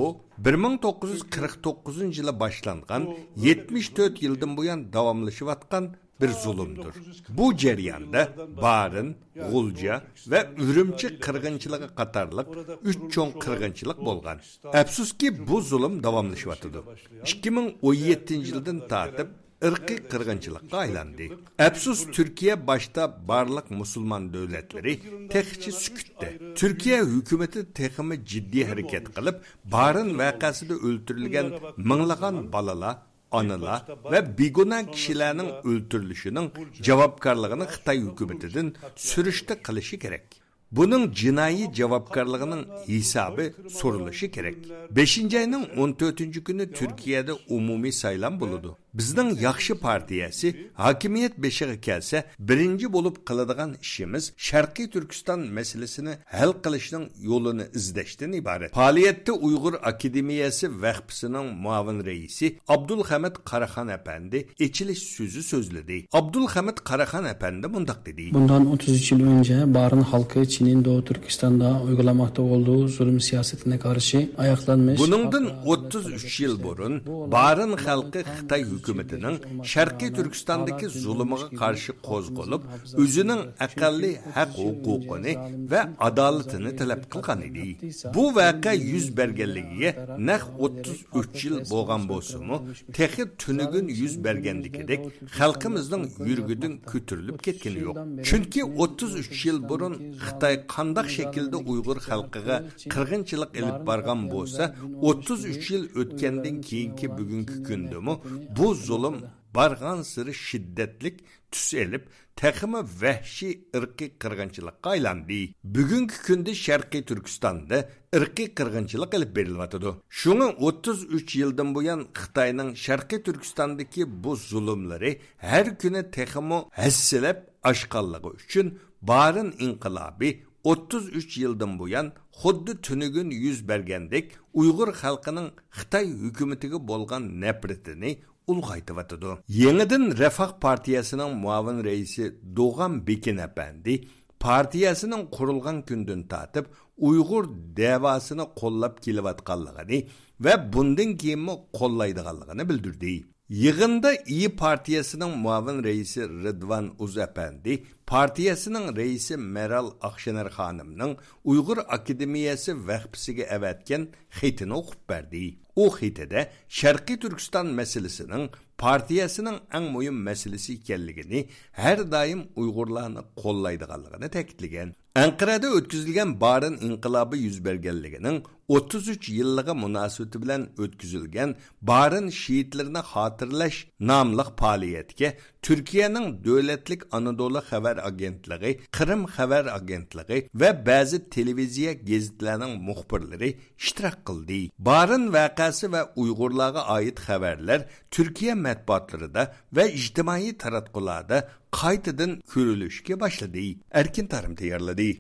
بىر مىڭ توققۇز يۈز قىرىق توققۇزىنچى يىلى باشلانغان، يەتمىش تۆت يىلدىن بۇيان داۋاملىشىۋاتقان بىر زۇلۇمدۇر. بۇ جەرياندا بارىن، غۇلجا ۋە ئۈرۈمچى قىرغىنچىلىقى قاتارلىق ئۈچ چوڭ قىرغىنچىلىق بولغان. ئەپسۇسكى، بۇ زۇلۇم داۋاملىشىۋاتىدۇ. ئىككى مىڭ ئون يەتتىنچى يىلدىن تارتىپ ئىرقىي قىرغىنچىلىققا ئايلاندى. ئەپسۇس، تۈركىيە باشتا بارلىق مۇسۇلمان دۆلەتلىرى تېخىچە سۈكۈتتە. تۈركىيە ھۆكۈمىتى تېخىمۇ جىددىي ھەرىكەت قىلىپ، بارىن ۋەقەسىدە ئۆلتۈرۈلگەن مىڭلىغان بالىلار، ئانىلار ۋە بىگۇناھ كىشىلەرنىڭ ئۆلتۈرۈلۈشىنىڭ جاۋابكارلىقىنى خىتاي ھۆكۈمىتىدىن سۈرۈشتە قىلىشى كېرەك. بۇنىڭ جىنايى جاۋابكارلىقىنىڭ ھېسابى سورىلىشى كېرەك. بەشىنچى ئاينىڭ ئون تۆتىنچى كۈنى تۈركىيەدە ئومۇمىي سايلام بولىدۇ. بىزنىڭ ياخشى پارتىيەسى ھاكىمىيەت بېشىغا كەلسە، بىرىنچى بولۇپ قىلىدىغان ئىشىمىز شەرقىي تۈركىستان مەسىلىسىنى ھەل قىلىشنىڭ يولىنى ئىزدەشتىن ئىبارەت. پائالىيەتتە ئۇيغۇر ئاكادېمىيەسى ۋەخپىسىنىڭ مۇئاۋىن رەئىسى ئابدۇلخەمىت قاراخان ئەپەندى ئېچىلىش سۆزى سۆزلىدى. ئابدۇلخەمىت قاراخان ئەپەندى مۇنداق دېدى. Bundan otuz üç yıl önce Barın halkı Çin'in Doğu Türkistan'da uygulamakta olduğu zulüm siyasetine karşı ayaklanmış. بۇنىڭدىن ئوتتۇز ئۈچ يىل بۇرۇن بارىن خەلقى خىتاي ھۆكۈمىتىنىڭ شەرقىي تۈركىستاندىكى زۇلۇمىغا قارشى قوزغىلىپ، ئۆزىنىڭ ئەقەللىي ھەق ھوقۇقىنى ۋە ئادالىتىنى تەلەپ قىلغان ئىدى. بۇ ۋەقە يۈز بەرگەنلىكىگە نەق ئوتتۇز ئۈچ يىل بولغان بولسىمۇ، تېخى تۈنۈگۈن يۈز بەرگەندىكىدەك خەلقىمىزنىڭ يۈرىكىدىن كۆتۈرۈلۈپ كەتكىنى يوق. چۈنكى ئوتتۇز ئۈچ يىل بۇرۇن خىتاي قانداق شەكىلدە ئۇيغۇر خەلقىگە قىرغىنچىلىق ئېلىپ بارغان بولسا، ئوتتۇز ئۈچ يىل ئۆتكەندىن كېيىنكى بۈگۈنكى كۈندىمۇ بۇ زۇلۇم بارغانسېرى شىددەتلىك تۈس ئېلىپ، تېخىمۇ ۋەھشىي ئىرقىي قىرغىنچىلىققا ئايلاندى. بۈگۈنكى كۈندە شەرقىي تۈركىستاندا ئىرقىي قىرغىنچىلىق ئېلىپ بېرىلىۋاتىدۇ. شۇڭا ئوتتۇز ئۈچ يىلدىن بۇيان خىتاينىڭ شەرقىي تۈركىستاندىكى بۇ زۇلۇملىرى ھەر كۈنى تېخىمۇ ھەسسىلەپ ئاشقانلىقى ئۈچۈن، بارىن ئىنقىلابى ئوتتۇز ئۈچ يىلدىن بۇيان خۇددى تۈنۈگۈن يۈز بەرگەندەك ئۇيغۇر خەلقىنىڭ خىتاي ھۆكۈمىتىگە بولغان نەپرىتىنى ئۇلغايتىۋاتىدۇ. يېڭىدىن رەفاھ پارتىيەسىنىڭ مۇئاۋىن رەئىسى دوغان بېكىن ئەپەندى پارتىيەسىنىڭ قۇرۇلغان كۈندىن تارتىپ ئۇيغۇر دەۋاسىنى قوللاپ كېلىۋاتقانلىقىنى ۋە بۇندىن كېيىنمۇ قوللايدىغانلىقىنى بىلدۈردى. يىغىندا ئىيى پارتىيەسىنىڭ مۇئاۋىن رەئىسى رىدۋان ئۇز ئەپەندى پارتىيەسىنىڭ رەئىسى مەرال ئاقشېنەر خانىمنىڭ ئۇيغۇر ئاكادېمىيەسى ۋەخپىسىگە ئەۋەتكەن خېتىنى ئوقۇپ بەردى. ئۇ خېتىدە شەرقىي تۈركىستان مەسىلىسىنىڭ پارتىيەسىنىڭ ئەڭ مۇھىم مەسىلىسى ئىكەنلىكىنى، ھەر دائىم ئۇيغۇرلارنى قوللايدىغانلىقىنى تەكىتلىگەن. ئەنقەرەدە ئۆتكۈزۈلگەن بارىن ئىنقىلابى يۈز بەرگەنلىكىنىڭ ئوتتۇز ئۈچ يىللىقى مۇناسىۋىتى بىلەن ئۆتكۈزۈلگەن بارىن شېھىتلىرىنى خاتىرىلەش ناملىق پائالىيەتكە تۈركىيەنىڭ دۆلەتلىك ئانادولۇ خەۋەر ئاگېنتلىقى، قىرىم خەۋەر ئاگېنتلىقى ۋە بەزى تېلېۋىزىيە گېزىتلەرنىڭ مۇخبىرلىرى ئىشتىراك قىلدى. بارىن ۋەقەسى ۋە ئۇيغۇرلارغا ئائىت خەۋەرلەر تۈركىيە مەتبۇئاتلىرىدا ۋە ئىجتىمائىي تاراتقۇلاردا قايتىدىن كۆرۈلۈشكە باشلىدى. ئەركىن تارىم تەييارلىدى.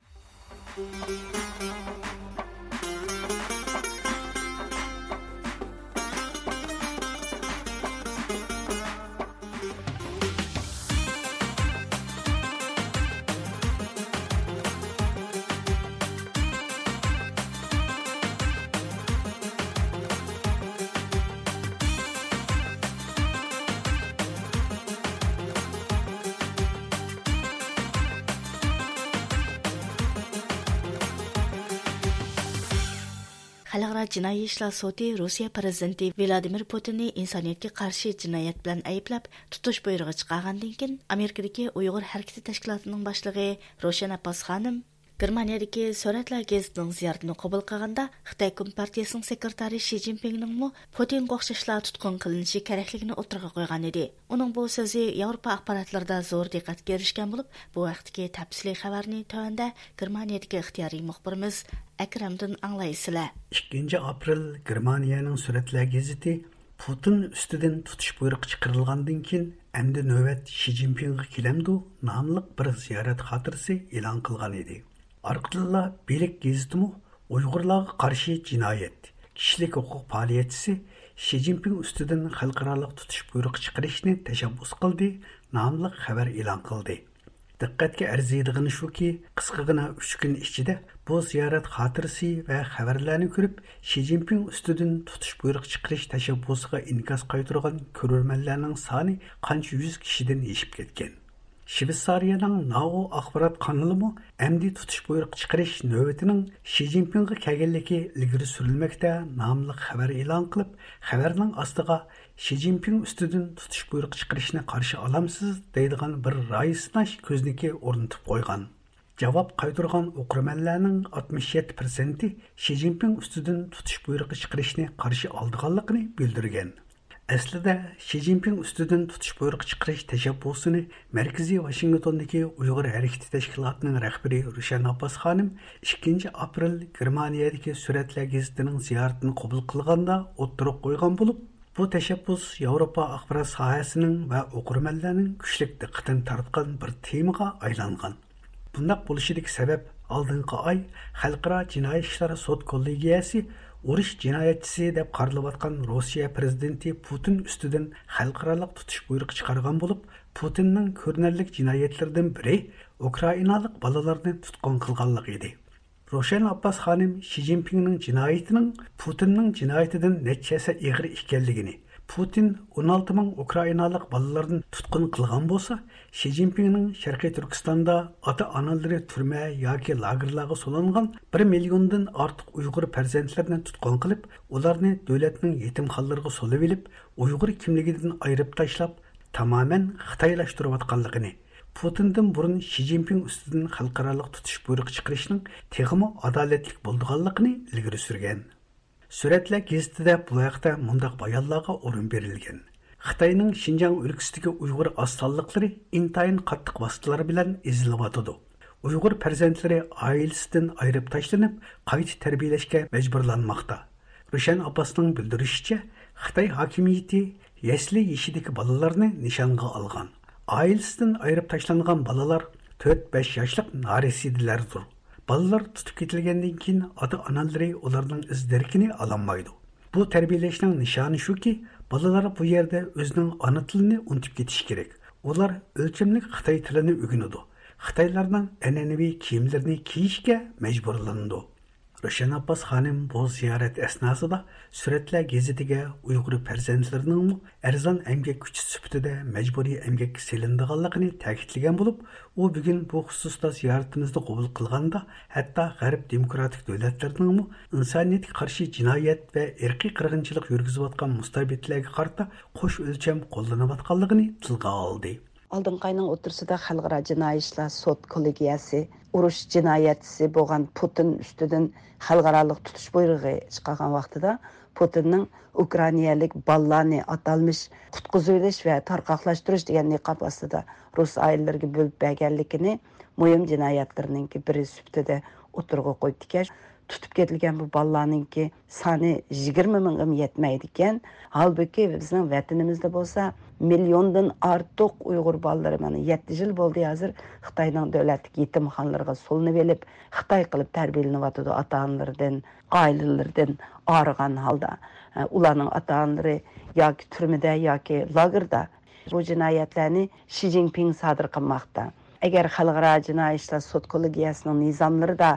خەلقئارا جىنايى ئىشلار سوتى روسىيە پىرېزىدېنتى ۋلادىمىر پۇتىننى ئىنسانىيەتكە قارشى جىنايەت بىلەن ئەيىبلەپ، تۇتۇش بۇيرۇقى چىقارغاندىن كېيىن، ئامېرىكىدىكى ئۇيغۇر ھەرىكىتى تەشكىلاتىنىڭ باشلىقى روشەن ئابباس خانىم گېرمانىيەدىكى سۈرەتلەر گېزىتىنىڭ زىيارىتىنى قوبۇل قىلغاندا، خىتاي كومپارتىيەسىنىڭ سېكرېتارى شى جىنپىڭنىڭمۇ پۇتىنغا ئوخشاشلا تۇتقۇن قىلىنىشى كېرەكلىكىنى ئوتتۇرىغا قويغان ئىدى. ئۇنىڭ بۇ سۆزى ياۋروپا ئاخباراتلىرىدا زور دىققەتكە ئېرىشكەن بولۇپ، بۇ ھەقتىكى تەپسىلىي خەۋەرنى تۆۋەندە گېرمانىيەدىكى ئىختىيارىي مۇخبىرىمىز ئەكرەمدىن ئاڭلايسىلەر. ئىككىنچى ئاپرېل گېرمانىيەنىڭ سۈرەتلەر گېزىتى پۇتىن ئۈستىدىن تۇتۇش بۇيرۇقى چىقىرىلغاندىن كېيىن، ئەمدى نۆۋەت شى جىنپىڭغا كېلەمدۇ ناملىق بىر زىيارەت خاتىرىسى ئېلان قىلغان ئىدى. ئارقىدىنلا بىلىك گېزىتىمۇ ئۇيغۇرلارغا قارشى جىنايەت، كىشىلىك ھوقۇق پائالىيەتچىسى شى جىنپىڭ ئۈستىدىن خەلقئارالىق تۇتۇش بۇيرۇقى چىقىرىشنى تەشەببۇس قىلدى ناملىق خەۋەر ئېلان قىلدى. دىققەتكە ئەرزىيدىغىنى شۇكى، قىسقىغىنا ئۈچ كۈن ئىچىدە بۇ زىيارەت خاتىرىسى ۋە خەۋەرلەرنى كۆرۈپ، شى جىنپىڭ ئۈستىدىن تۇتۇش بۇيرۇقى چىقىرىش تەشەببۇسىغا ئىنكاس قايتۇرغان كۆرۈرمەنلەرنىڭ سانى قانچە يۈز كىشىدىن ئېشىپ كەتكەن. شىۋېتسارىيەنىڭ ناۋو ئاخبارات قانىلىمۇ ئەمدى تۇتۇش بۇيرۇقى چىقىرىش نۆۋىتىنىڭ شى جىنپىڭغا كەلگەنلىكى ئىلگىرى سۈرۈلمەكتە ناملىق خەۋەر ئېلان قىلىپ، خەۋەرنىڭ ئاستىغا شى جىنپىڭ ئۈستىدىن تۇتۇش بۇيرۇقى چىقىرىشنى قارشى ئالامسىز دەيدىغان بىر رايى سىناش كۆزنىكى ئورنىتىپ قويغان. جاۋاب قايتۇرغان ئوقۇرمەنلەرنىڭ ئاتمىش يەتتە پىرسەنتى شى جىنپىڭ ئۈستىدىن تۇتۇش بۇيرۇقى چىقىرىشنى قارشى ئالىدىغانلىقىنى بىلدۈرگەن. ئەسلىدە، شى جىنپىڭ ئۈستىدىن تۇتۇش بۇيرۇقى چىقىرىش تەشەببۇسىنى مەركىزىي ۋاشىنگتوندىكى ئۇيغۇر ھەرىكىتى تەشكىلاتىنىڭ رەھبىرى روشەن ئابباس خانىم ئىككىنچى ئاپرېل گېرمانىيەدىكى سۈرەتلەر گېزىتىنىڭ زىيارىتىنى قوبۇل قىلغاندا ئوتتۇرىغا قويغان بولۇپ، بۇ تەشەببۇس ياۋروپا ئاخبارات ساھەسىنىڭ ۋە ئوقۇرمەنلەرنىڭ كۈچلۈك دىققىتىنى تارتقان بىر تېمىغا ئايلانغان. بۇنداق بولۇشىدىكى سەۋەب، ئالدىنقى ئاي خەلقئارا جىنايى ئىشلار سوت كوللېگىيەسى ئۇرۇش جىنايەتچىسى دەپ قارىلىۋاتقان روسىيە پىرېزىدېنتى پۇتىن ئۈستىدىن خەلقئارالىق تۇتۇش بۇيرۇقى چىقارغان بولۇپ، پۇتىننىڭ كۆرۈنەرلىك جىنايەتلىرىدىن بىرى ئۇكرائىنالىق بالىلارنى تۇتقۇن قىلغانلىقى ئىدى. روشەن ئابباس خانىم شى جىنپىڭنىڭ جىنايىتىنىڭ پۇتىننىڭ جىنايىتىدىن نەچچە ھەسسە ئېغىر ئىكەنلىكىنى، پۇتىن ئون ئالتە مىڭ ئۇكرائىنالىق بالىلارنى تۇتقۇن قىلغان بولسا، شى جىنپىڭنىڭ شەرقىي تۈركىستاندا ئاتا-ئانىلىرى تۈرمە ياكى لاگېرلارغا سولانغان بىر مىليوندىن ئارتۇق ئۇيغۇر پەرزەنتلىرىنى تۇتقۇن قىلىپ، ئۇلارنى دۆلەتنىڭ يېتىمخانىلىرىغا سولىۋېلىپ، ئۇيغۇر كىملىكىدىن ئايرىپ تاشلاپ، تامامەن خىتايلاشتۇرۇۋاتقانلىقىنى، پۇتىندىن بۇرۇن شى جىنپىڭ ئۈستىدىن خەلقئارالىق تۇتۇش بۇيرۇقى چىقىرىشنىڭ تېخىمۇ ئادالەتلىك بولىدىغانلىقىنى ئىلگىرى سۈرگەن. سۈرەتلەر گېزىتىدە بۇ ھەقتە مۇنداق بايانلارغا ئورۇن بېرىلگەن: خىتاينىڭ شىنجاڭ ئۆلكىسىدىكى ئۇيغۇر ئاز سانلىقلىرى ئىنتايىن قاتتىق ۋاسىتىلەر بىلەن ئېزىلىۋاتىدۇ. ئۇيغۇر پەرزەنتلىرى ئائىلىسىدىن ئايرىپ تاشلىنىپ، قايتا تەربىيەلەشكە مەجبۇرلانماقتا. روشەن ئابباسنىڭ بىلدۈرۈشىچە، خىتاي ھاكىمىيىتى يەسلى يېشىدىكى بالىلارنى نىشانغا ئالغان. ئائىلىسىدىن ئايرىپ تاشلانغان بالىلار تۆت بەش ياشلىق نارەسىدىلەردۇر. بالىلار تۇتۇپ كېتىلگەندىن كېيىن، ئاتا-ئانىلىرى ئۇلارنىڭ ئىز دېرىكىنى ئالالمايدۇ. بۇ تەربىيەلەشنىڭ نىشانى شۇكى، بالىلار بۇ يەردە ئۆزىنىڭ ئانا تىلىنى ئۇنتۇپ كېتىشى كېرەك. ئۇلار ئۆلچەملىك خىتاي تىلىنى ئۆگىنىدۇ. خىتايلارنىڭ ئەنئەنىۋى كىيىملىرىنى كىيىشكە مەجبۇرلىنىدۇ. روشەن ئابباس خانىم بۇ زىيارەت ئەسناسىدا سۈرەتلەر گېزىتىگە ئۇيغۇر پەرزەنتلىرىنىڭمۇ ئەرزان ئەمگەك كۈچى سۈپىتىدە مەجبۇرىي ئەمگەككە سېلىنىدىغانلىقىنى تەكىتلىگەن بولۇپ، ئۇ بۈگۈن بۇ خۇسۇستا زىيارىتىمىزنى قوبۇل قىلغاندا، ھەتتا غەرب دېموكراتىك دۆلەتلىرىنىڭمۇ ئىنسانىيەتكە قارشى جىنايەت ۋە ئىرقىي قىرغىنچىلىق يۈرگۈزۈۋاتقان مۇستەبىتلەرگە قارىتا قوش ئۆلچەم قوللىنىۋاتقانلىقىنى تىلغا ئالدى. ئالدىنقى ئاينىڭ ئوتتۇرىسىدا خەلقئارا جىنايى ئىشلار سوت كوللېگىيەسى ئۇرۇش جىنايەتچىسى بولغان پۇتىن ئۈستىدىن خەلقئارالىق تۇتۇش بۇيرۇغى چىقارغان ۋاقتىدا، پۇتىننىڭ ئۇكرائىنالىق بالىلارنى ئاتالمىش قۇتقۇزۇۋېلىش ۋە تارقاقلاشتۇرۇش دېگەن نىقاب ئاستىدا رۇس ئائىلىلىرىگە بۆلۈپ بەرگەنلىكىنى مۇھىم جىنايەتلىرىنىڭكى بىرى سۈپىتىدە ئوتتۇرىغا قويۇپتىكەن. تۇتۇپ كېتىلگەن بۇ بالىلارنىڭكى سانى يىگىرمە مىڭغىمۇ يەتمەيدىكەن. ھالبۇكى، بىزنىڭ ۋەتىنىمىزدە بولسا مىليوندىن ئارتۇق ئۇيغۇر بالىلىرى، مانا، يەتتە يىل بولدى ھازىر خىتاينىڭ دۆلەتلىك يېتىمخانىلىرىغا سولىنىۋېلىپ، خىتاي قىلىپ تەربىيەلىنىۋاتىدۇ، ئاتا-ئانىلىرىدىن، ئائىلىلىرىدىن ئايرىغان ھالدا. ئۇلارنىڭ ئاتا-ئانىلىرى ياكى تۈرمىدە، ياكى لاگېردا. بۇ جىنايەتلەرنى شى جىنپىڭ سادىر قىلماقتا. ئەگەر خەلقئارا جىنايى ئىشلار سوت كوللېگىيەسىنىڭ نىزاملىرىدا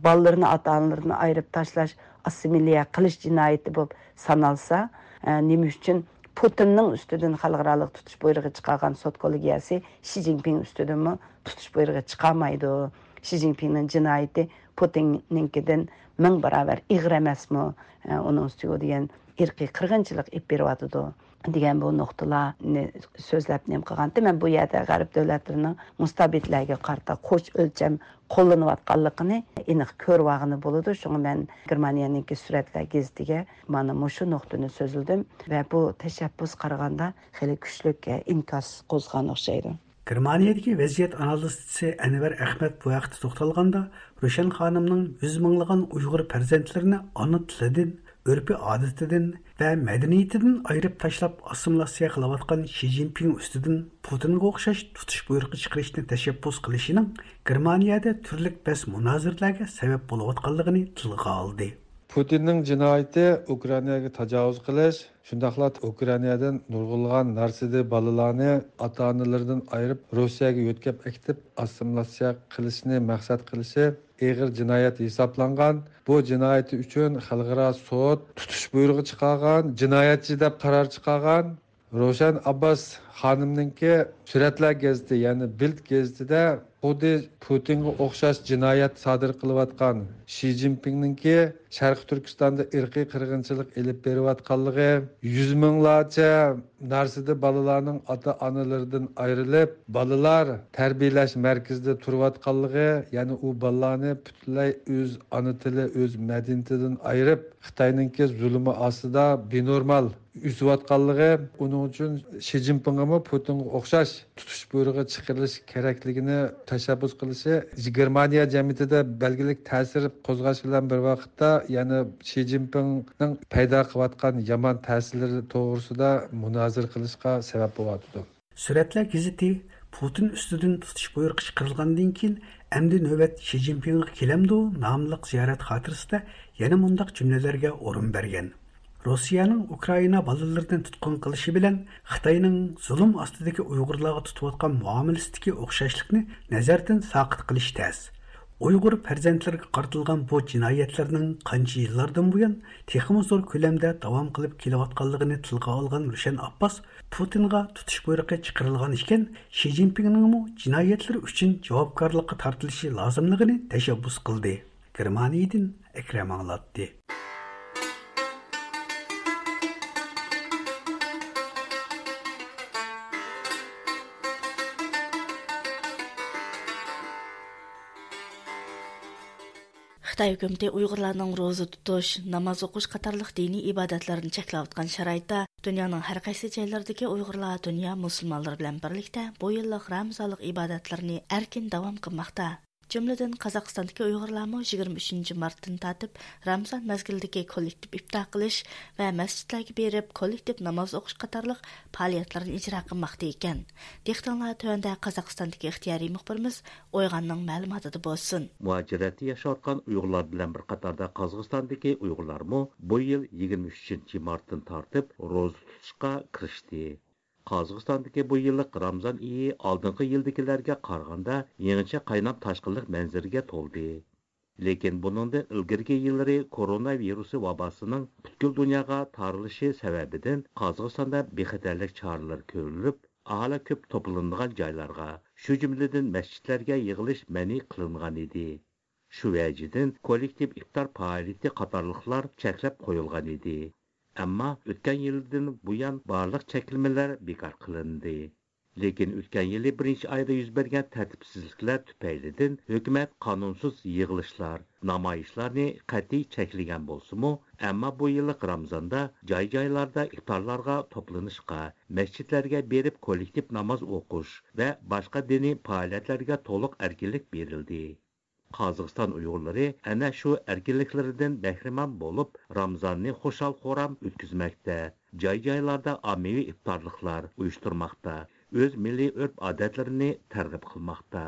بالىلىرىنى ئاتا-ئانىلىرىدىن ئايرىپ تاشلاش، ئاسسىمىليە قىلىش جىنايىتى بولۇپ سانالسا، ئە، نېمە ئۈچۈن پۇتىننىڭ ئۈستىدىن خەلقئارالىق تۇتۇش بۇيرۇقى چىقارغان سوت كوللېگىيەسى شى جىنپىڭ ئۈستىدىنمۇ تۇتۇش بۇيرۇقى چىقارمايدۇ؟ شى جىنپىڭنىڭ جىنايىتى پۇتىننىڭكىدىن مىڭ باراۋەر ئېغىر ئەمەسمۇ؟ ئە، ئۇنىڭ ئۈستىگە دېگەن ئىرقىي قىرغىنچىلىق ئېلىپ بېرىۋاتىدۇ. دېگەن بۇ نۇقتىلارنى سۆزلەپ نېمە قىلغانتى. مەن بۇ يەردە غەرب دۆلەتلىرىنىڭ مۇستەبىتلەرگە قارىتا قوش ئۆلچەم قوللىنىۋاتقانلىقىنى ئېنىق كۆرۈۋالغىلى بولىدۇ. شۇڭا مەن گېرمانىيەنىڭكى سۈرەتلەر گېزىتىگە مانا مۇشۇ نۇقتىنى سۆزلىدىم ۋە بۇ تەشەببۇس قارىغاندا خېلى كۈچلۈك ئىنكاس قوزغىغان ئوخشايدۇ. گېرمانىيەدىكى ۋەزىيەت ئانالىزچىسى ئەنۋەر ئەخمەت بۇ ھەقتە توختالغاندا، روشەن خانىمنىڭ يۈز مىڭلىغان ئۇيغۇر پەرزەنتلىرىنى ئانا تىلىدىن، ئۆرپى ئادىتىدىن ۋە مەدەنىيىتىدىن ئايرىپ تاشلاپ، ئاسسىمىلياتسىيە قىلىۋاتقان شى جىنپىڭ ئۈستىدىن پۇتىنغا ئوخشاش تۇتۇش بۇيرۇقى چىقىرىشنى تەشەببۇس قىلىشىنىڭ گېرمانىيەدە تۈرلۈك بەس مۇنازىرىلەرگە سەۋەب بولۇۋاتقانلىقىنى تىلغا ئالدى. پۇتىننىڭ جىنايىتى ئۇكرائىناغا تاجاۋۇز قىلىش، شۇنداقلا ئۇكرائىنادىن نۇرغۇنلىغان نارسىدى بالىلارنى ئاتا-ئانىلىرىدىن ئايرىپ، روسىيەگە يۆتكەپ ئەكېتىپ ئاسسىمىلياتسىيە قىلىشنى مەقسەت قىلىشى ئېغىر جىنايەت ھېسابلانغان. بۇ جىنايىتى ئۈچۈن خەلقئارا سوت تۇتۇش بۇيرۇقى چىقارغان، جىنايەتچى دەپ قارار چىقارغان. روشەن ئابباس خانىمنىڭكى سۈرەتلەر گېزىتى، يەنى بىلد گېزىتىدە خۇددى پۇتىنغا ئوخشاش جىنايەت سادىر قىلىۋاتقان شى جىنپىڭنىڭكى شەرقىي تۈركىستاندا ئىرقىي قىرغىنچىلىق ئېلىپ بېرىۋاتقانلىقى، يۈز مىڭلارچە نارسىدى بالىلارنىڭ ئاتا-ئانىلىرىدىن ئايرىلىپ، بالىلار تەربىيەلەش مەركىزىدە تۇرۇۋاتقانلىقى، يەنى ئۇ بالىلارنى پۈتۈنلەي ئۆز ئانا تىلى، ئۆز مەدەنىيىتىدىن ئايرىپ، خىتاينىڭكى زۇلۇمى ئاستىدا بىنورمال ئۆسۈۋاتقانلىقى، ئۇنىڭ ئۈچۈن شى جىنپىڭغىمۇ پۇتىنغا ئوخشاش تۇتۇش بۇيرۇقى چىقىرىلىش كېرەكلىكىنى تەشەببۇس قىلىشى گېرمانىيە جەمئىيىتىدە بەلگىلىك تەسىر قوزغاش بىلەن بىر ۋاقىتتا، يەنە شى جىنپىڭنىڭ پەيدا قىلىۋاتقان يامان تەسىرلىرى توغرىسىدا مۇنازىرە قىلىشقا سەۋەب بولۇۋاتىدۇ. سۈرەتلەر گېزىتى پۇتىن ئۈستىدىن تۇتۇش بۇيرۇقى چىقىرىلغاندىن كېيىن، ئەمدى نۆۋەت شى جىنپىڭغا كېلەمدۇ ناملىق زىيارەت خاتىرىسىدە يەنە مۇنداق جۈملىلەرگە ئورۇن بەرگەن: روسىيەنىڭ ئۇكرائىنا بالىلىرىنى تۇتقۇن قىلىشى بىلەن خىتاينىڭ زۇلۇم ئاستىدىكى ئۇيغۇرلارغا تۇتۇۋاتقان مۇئامىلىسىدىكى ئوخشاشلىقنى نەزەردىن ساقىت قىلىش تەس. ئۇيغۇر پەرزەنتلىرىگە قارىتىلغان بۇ جىنايەتلەرنىڭ قانچە يىللاردىن بۇيان تېخىمۇ زور كۆلەمدە داۋام قىلىپ كېلىۋاتقانلىقىنى تىلغا ئالغان روشەن ئابباس، پۇتىنغا تۇتۇش بۇيرۇقى چىقىرىلغان ئىكەن، شى جىنپىڭنىڭمۇ جىنايەتلىرى ئۈچۈن جاۋابكارلىققا تارتىلىشى لازىملىقىنى تەشەببۇس قىلدى. گېرمانىيەدىن ئەكرەم ئاڭلاتتى. خىتاي ھۆكۈمىتى ئۇيغۇرلارنىڭ روزا تۇتۇش، ناماز ئوقۇش قاتارلىق دىنىي ئىبادەتلىرىنى چەكلەۋاتقان شارائىتتا، دۇنيانىڭ ھەر قايسى جايلىرىدىكى ئۇيغۇرلار دۇنيا مۇسۇلمانلىرى بىلەن بىرلىكتە بۇ يىللىق رامزانلىق ئىبادەتلىرىنى ئەركىن داۋام قىلماقتا. جۈملىدىن، قازاقىستاندىكى ئۇيغۇرلارمۇ يىگىرمە ئۈچىنچى مارتتىن تارتىپ رامزان مەزگىلىدىكى كوللېكتىپ ئىپتار قىلىش ۋە مەسچىتلەرگە بېرىپ كوللېكتىپ ناماز ئوقۇش قاتارلىق پائالىيەتلىرىنى ئىجرا قىلماقتا ئىكەن. دىققىتىڭلار تۆۋەندە قازاقىستاندىكى ئىختىيارىي مۇخبىرىمىز ئويغاننىڭ مەلۇماتىدا بولسۇن. مۇھاجىرەتتە ياشاۋاتقان ئۇيغۇرلار بىلەن بىر قاتاردا قازاقىستاندىكى ئۇيغۇرلارمۇ بۇ يىل يىگىرمە ئۈچىنچى مارتتىن تارتىپ روزا تۇتۇشقا كىرىشتى. قازاقىستاندىكى بۇ يىللىق رامزان ئېيى ئالدىنقى يىلدىكىلەرگە قارىغاندا يېڭىچە قايناپ تاشقىنلىق مەنزىرىگە تولدى. لېكىن بۇنىڭدىن ئىلگىرىكى يىللىرى كورونا ۋىرۇسى ۋاباسىنىڭ پۈتكۈل دۇنياغا تارىلىشى سەۋەبىدىن قازاقىستاندا بىخەتەرلىك چارىلىرى كۆرۈلۈپ، ئاھالە كۆپ توپلىنىدىغان جايلارغا، شۇ جۈملىدىن مەسچىتلەرگە يىغىلىش مەنئى قىلىنغان ئىدى. شۇ ۋەجىدىن كوللېكتىپ ئىپتار پائالىيىتى قاتارلىقلار چەكلەپ قويۇلغان ئىدى. ئەمما ئۆتكەن يىلدىن بۇيان بارلىق چەكلىمىلەر بىكار قىلىندى. لېكىن ئۆتكەن يىلى بىرىنچى ئايدا يۈز بەرگەن تەرتىپسىزلىكلەر تۈپەيلىدىن ھۆكۈمەت قانۇنسىز يىغىلىشلار، نامايىشلارنى قەتئىي چەكلىگەن بولسىمۇ، ئەمما بۇ يىللىق رامزاندا جاي-جايلاردا ئىپتارلارغا توپلىنىشقا، مەسچىتلەرگە بېرىپ كوللېكتىپ ناماز ئوقۇش ۋە باشقا دىنىي پائالىيەتلەرگە تولۇق ئەركىنلىك بېرىلدى. قازاقىستان ئۇيغۇرلىرى ئەنە شۇ ئەركىنلىكلىرىدىن بەھرىمەن بولۇپ، رامزاننى خۇشال-خۇرام ئۆتكۈزمەكتە، جاي-جايلاردا ئاممىۋى ئىپتارلىقلار ئۇيۇشتۇرماقتا، ئۆز مىللىي ئۆرپ-ئادەتلىرىنى تەرغىب قىلماقتا.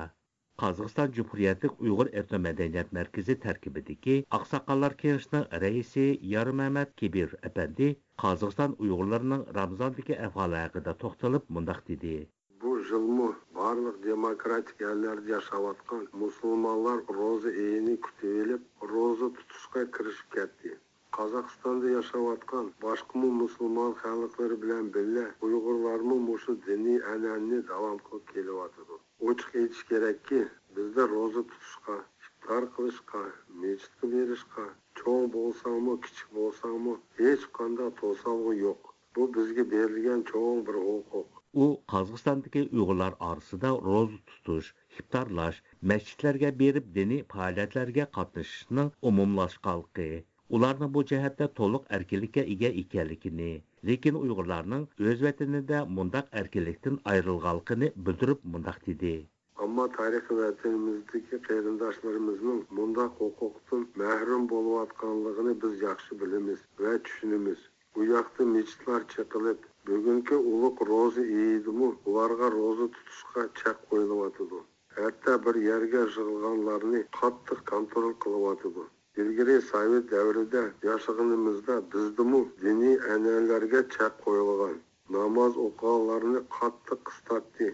قازاقىستان جۇمھۇرىيەتلىك ئۇيغۇر ئېتنو مەدەنىيەت مەركىزى تەركىبىدىكى ئاقساقاللار كېڭىشىنىڭ رەئىسى يارمەمەت كېبىر ئەپەندى قازاقىستان ئۇيغۇرلىرىنىڭ رامزاندىكى ئەھۋالى ھەققىدە توختىلىپ مۇنداق دېدى. بۇ يىلمۇ بارلىق دېموكراتىك ئەللەردە ياشاۋاتقان مۇسۇلمانلار روزا ئېيىنى كۈتۈۋېلىپ، روزا تۇتۇشقا كىرىشىپ كەتتى. قازاقىستاندا ياشاۋاتقان باشقىمۇ مۇسۇلمان خەلقلىرى بىلەن بىللە ئۇيغۇرلارمۇ مۇشۇ دىنىي ئەنئەنىنى داۋام قىلىپ كېلىۋاتىدۇ. ئوچۇق ئېيتىش كېرەككى، بىزدە روزا تۇتۇشقا، ئىپتار قىلىشقا، مەسچىتكە بېرىشقا، چوڭ بولساڭمۇ، كىچىك بولساڭمۇ، ھېچقانداق توسالغۇ يوق. بۇ بىزگە بېرىلگەن چوڭ بىر ھوقۇق. ئۇ قازاقىستاندىكى ئۇيغۇرلار ئارىسىدا روزا تۇتۇش، ئىپتارلاش، مەسچىتلەرگە بېرىپ دىنىي پائالىيەتلەرگە قاتنىشىشنىڭ ئومۇملاشقانلىقى، ئۇلارنىڭ بۇ جەھەتتە تولۇق ئەركىنلىككە ئىگە ئىكەنلىكىنى، لېكىن ئۇيغۇرلارنىڭ ئۆز ۋەتىنىدە مۇنداق ئەركىنلىكتىن ئايرىلغانلىقىنى بىلدۈرۈپ مۇنداق دېدى. ئەمما تارىخىي ۋەتىنىمىزدىكى قېرىنداشلىرىمىزنىڭ مۇنداق ھوقۇقتىن مەھرۇم بولۇۋاتقانلىقىنى بىز ياخشى بىلىمىز ۋە چۈشىنىمىز. ئۇ ياقتا مىچىتلار چېقىلىپ، بۈگۈنكى ئۇلۇغ روزا ئېيىدىمۇ ئۇلارغا روزا تۇتۇشقا چەك قويۇلۇۋاتىدۇ. ھەتتا بىر يەرگە يىغىلغانلارنى قاتتىق كونترول قىلىۋاتىدۇ. ئىلگىرى سوۋېت دەۋرىدە ياشىغىنىمىزدا بىزدىمۇ دىنىي ئەنئەنىلەرگە چەك قويۇلغان. ناماز ئوقۇغانلارنى قاتتىق قىستاتتى.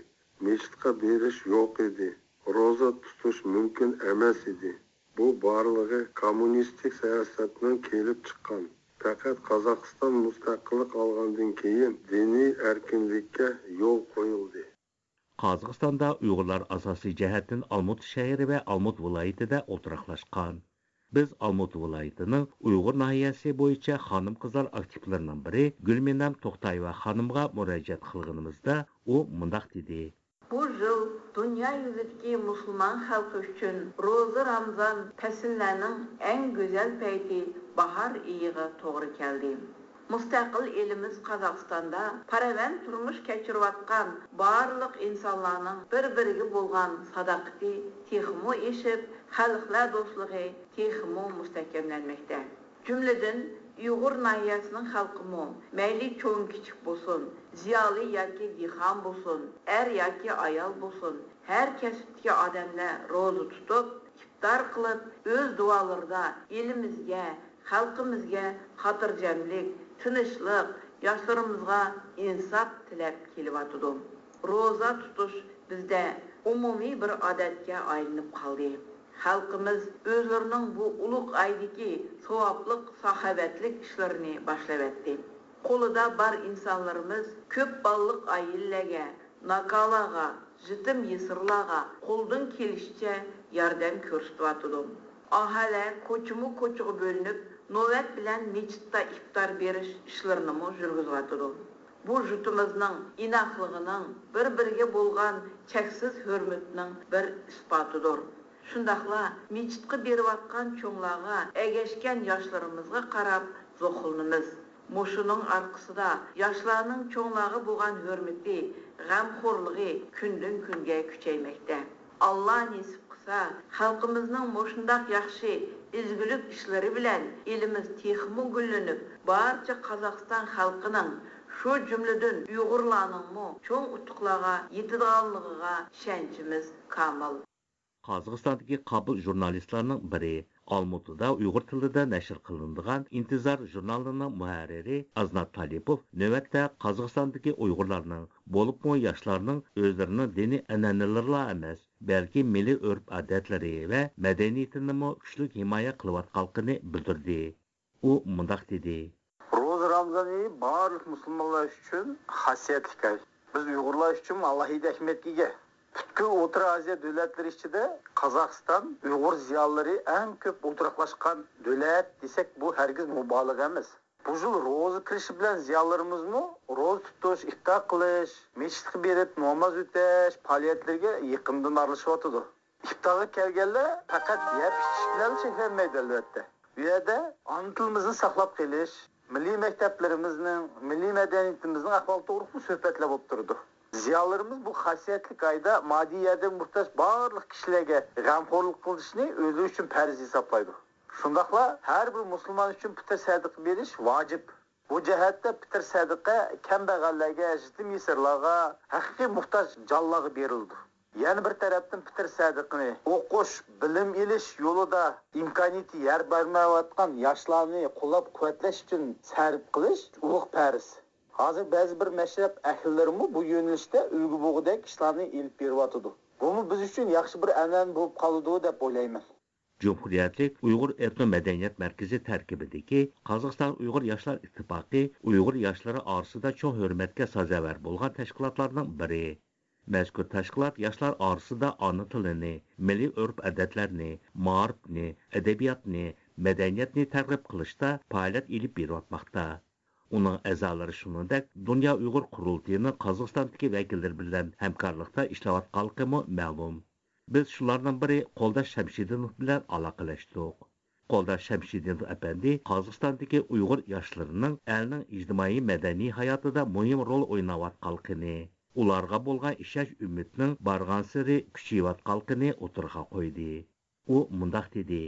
مىچىتقا بېرىش يوق ئىدى. روزا تۇتۇش مۇمكىن ئەمەس ئىدى. بۇ بارلىقى كوممۇنىستىك سىياسەتنىڭ كېلىپ چىققان. پەقەت قازاقىستان مۇستەقىللىق ئالغاندىن كېيىن دىنىي ئەركىنلىككە يول قويۇلدى. قازاقىستاندا ئۇيغۇرلار ئاساسىي جەھەتتىن ئالمۇتا شەھىرى ۋە ئالمۇتا ۋىلايىتىدە ئولتۇراقلاشقان. بىز ئالمۇتا ۋىلايىتىنىڭ ئۇيغۇر ناھىيەسى بويىچە خانىم-قىزلار ئاكتىپلىرىنىڭ بىرى گۈلمىنەم توختايېۋا خانىمغا مۇراجىئەت قىلغىنىمىزدا، ئۇ مۇنداق دېدى. بۇ يىل دۇنيا يۈزىدىكى مۇسۇلمان خەلقى ئۈچۈن روزا رامزان پەسىللەرنىڭ ئەڭ گۈزەل پەيتى باھار ئېيىغا توغرا كەلدى. مۇستەقىل ئېلىمىز قازاقىستاندا پاراۋان تۇرمۇش كەچۈرۈۋاتقان بارلىق ئىنسانلارنىڭ بىر-بىرىگە بولغان ساداقىتى تېخىمۇ ئېشىپ، خەلقلەر دوستلۇقى تېخىمۇ مۇستەھكەملەنمەكتە. جۈملىدىن، ئۇيغۇر ناھىيەسىنىڭ خەلقىمۇ، مەيلى چوڭ-كىچىك بولسۇن، زىيالىي ياكى دېھقان بولسۇن، ئەر ياكى ئايال بولسۇن، ھەر كەسىپتىكى ئادەملەر روزا تۇتۇپ، ئىپتار قىلىپ، ئۆز دۇئالىرىدا ئېلىمىزگە، خەلقىمىزگە خاتىرجەملىك، تىنچلىق، ياشلىرىمىزغا ئىنساپ تىلەپ كېلىۋاتىدۇ. روزا تۇتۇش بىزدە ئومۇمىي بىر ئادەتكە ئايلىنىپ قالدى. خەلقىمىز ئۆزلىرىنىڭ بۇ ئۇلۇغ ئايدىكى ساۋابلىق، ساخاۋەتلىك ئىشلىرىنى باشلىۋەتتى. قولىدا بار ئىنسانلىرىمىز كۆپ بالىلىق ئائىلىلەرگە، ناكالارغا، يېتىم-يېسىرلارغا قولىدىن كېلىشىچە ياردەم كۆرسىتىۋاتىدۇ. ئاھالە كوچىمۇ كوچىغا بۆلۈنۈپ، نۆۋەت بىلەن مىچىتتا ئىپتار بېرىش ئىشلىرىنىمۇ يۈرگۈزۈۋاتىدۇ. بۇ يۇرتىمىزنىڭ ئىناقلىقىنىڭ، بىر-بىرىگە بولغان چەكسىز ھۆرمىتىنىڭ بىر ئىسپاتىدۇر. شۇنداقلا مىچىتقا بېرىۋاتقان چوڭلارغا، ئەگەشكەن ياشلىرىمىزغا قاراپ زوقلىنىمىز. مۇشۇنىڭ ئارقىسىدا ياشلارنىڭ چوڭلارغا بولغان ھۆرمىتى، غەمخورلۇقى كۈندىن-كۈنگە كۈچەيمەكتە. ئاللا نېسىپ قىلسا، خەلقىمىزنىڭ مۇشۇنداق ياخشى ئىزگىلىك ئىشلىرى بىلەن ئېلىمىز تېخىمۇ گۈللىنىپ، بارچە قازاقىستان خەلقىنىڭ، شۇ جۈملىدىن ئۇيغۇرلارنىڭمۇ چوڭ ئۇتۇقلارغا يېتىدىغانلىقىغا ئىشەنچىمىز كامىل. قازاقىستاندىكى قابىل ژۇرنالىستلارنىڭ بىرى، ئالمۇتىدا ئۇيغۇر تىلىدا نەشر قىلىنىدىغان ئىنتىزار ژۇرنالىنىڭ مۇھەررىرى ئازنات تالىپوف نۆۋەتتە قازاقىستاندىكى ئۇيغۇرلارنىڭ، بولۇپمۇ ياشلارنىڭ ئۆزلىرىنىڭ دىنىي ئەنئەنىلىرىلا ئەمەس، بەلكى مىللىي ئۆرپ-ئادەتلىرى ۋە مەدەنىيىتىنىمۇ كۈچلۈك ھىمايە قىلىۋاتقانلىقىنى بىلدۈردى. ئۇ مۇنداق دېدى. روزا رامزان ئېيى بارلىق مۇسۇلمانلار ئۈچۈن خاسىيەتلىك ئاي. بىز ئۇيغۇرلار ئۈچۈن ئالاھىدە ئەھمىيەتكە ئىگە. پۈتكۈل ئوتتۇرا ئازىيا دۆلەتلىرى ئىچىدە قازاقىستان ئۇيغۇر زىيالىيلىرى ئەڭ كۆپ ئولتۇراقلاشقان دۆلەت دېسەك، بۇ ھەرگىز مۇبالىغە ئەمەس. بۇ يىل روزا كىرىشى بىلەن زىيالىيلىرىمىزمۇ روزا تۇتۇش، ئىپتار قىلىش، مەسچىتكە بېرىپ ناماز ئۆتەش پائالىيەتلىرىگە يېقىندىن ئارىلىشىۋاتىدۇ. ئىپتارغا كەلگەنلەر پەقەت يەپ ئىچىش بىلەن چەكلەنمەيدۇ، ئەلۋەتتە. بۇ يەردە ئانا تىلىمىزنى ساقلاپ قېلىش، مىللىي مەكتەپلىرىمىزنىڭ، مىللىي مەدەنىيىتىمىزنىڭ ئەھۋالى توغرىلىقمۇ سۆھبەتلەر بولۇپ تۇرىدۇ. زىيالىيلىرىمىز بۇ خاسىيەتلىك ئايدا ماددىي ياردەمگە موھتاج بارلىق كىشىلەرگە غەمخورلۇق قىلىشنى ئۆزلىرى ئۈچۈن پەرز ھېسابلايدۇ. شۇنداقلا ھەر بىر مۇسۇلمان ئۈچۈن پىتىر سەدىقە بېرىش ۋاجىپ. بۇ جەھەتتە پىتىر سەدىقە كەمبەغەللەرگە، يېتىم-يېسىرلارغا، ھەقىقىي موھتاج جانلارغا بېرىلىدۇ. يەنە بىر تەرەپتىن پىتىر سەدىقىنى ئوقۇش، بىلىم ئېلىش يولىدا ئىمكانىيىتى يار بەرمەيۋاتقان ياشلارنى قوللاپ-قۇۋۋەتلەش ئۈچۈن سەرپ قىلىش ئۇلۇغ پەرز. ھازىر بەزى بىر مەشرەپ ئەھلىلىرىمۇ بۇ يۆنىلىشتە ئۈلگە بولغۇدەك ئىشلارنى ئېلىپ بېرىۋاتىدۇ. بۇمۇ بىز ئۈچۈن ياخشى بىر ئەنئەنە بولۇپ قالىدۇ دەپ ئويلايمەن. جۇمھۇرىيەتلىك ئۇيغۇر ئېتنو مەدەنىيەت مەركىزى تەركىبىدىكى قازاقىستان ئۇيغۇر ياشلار ئىتتىپاقى ئۇيغۇر ياشلىرى ئارىسىدا چوڭ ھۆرمەتكە سازاۋەر بولغان تەشكىلاتلارنىڭ بىرى. مەزكۇر تەشكىلات ياشلار ئارىسىدا ئانا تىلىنى، مىللىي ئۆرپ-ئادەتلەرنى، مائارىپنى، ئەدەبىياتنى، مەدەنىيەتنى تەرغىب قىلىشتا پائالىيەت ئېلىپ بېرىۋاتماقتا. ئۇنىڭ ئەزالىرى شۇنىڭدەك دۇنيا ئۇيغۇر قۇرۇلتىيىنىڭ قازاقىستاندىكى ۋەكىللىرى بىلەن ھەمكارلىقتا ئىشلەۋاتقانلىقىمۇ مەلۇم. بىز شۇلارنىڭ بىرى قولداش شەمشىدىنوف بىلەن ئالاقىلەشتۇق. قولداش شەمشىدىنوف ئەپەندى قازاقىستاندىكى ئۇيغۇر ياشلىرىنىڭ ئەلنىڭ ئىجتىمائىي مەدەنىي ھاياتىدا مۇھىم رول ئويناۋاتقانلىقىنى، ئۇلارغا بولغان ئىشەنچ ئۈمىدنىڭ بارغانسېرى كۈچىيىۋاتقانلىقىنى ئوتتۇرىغا قويدى. ئۇ مۇنداق دېدى.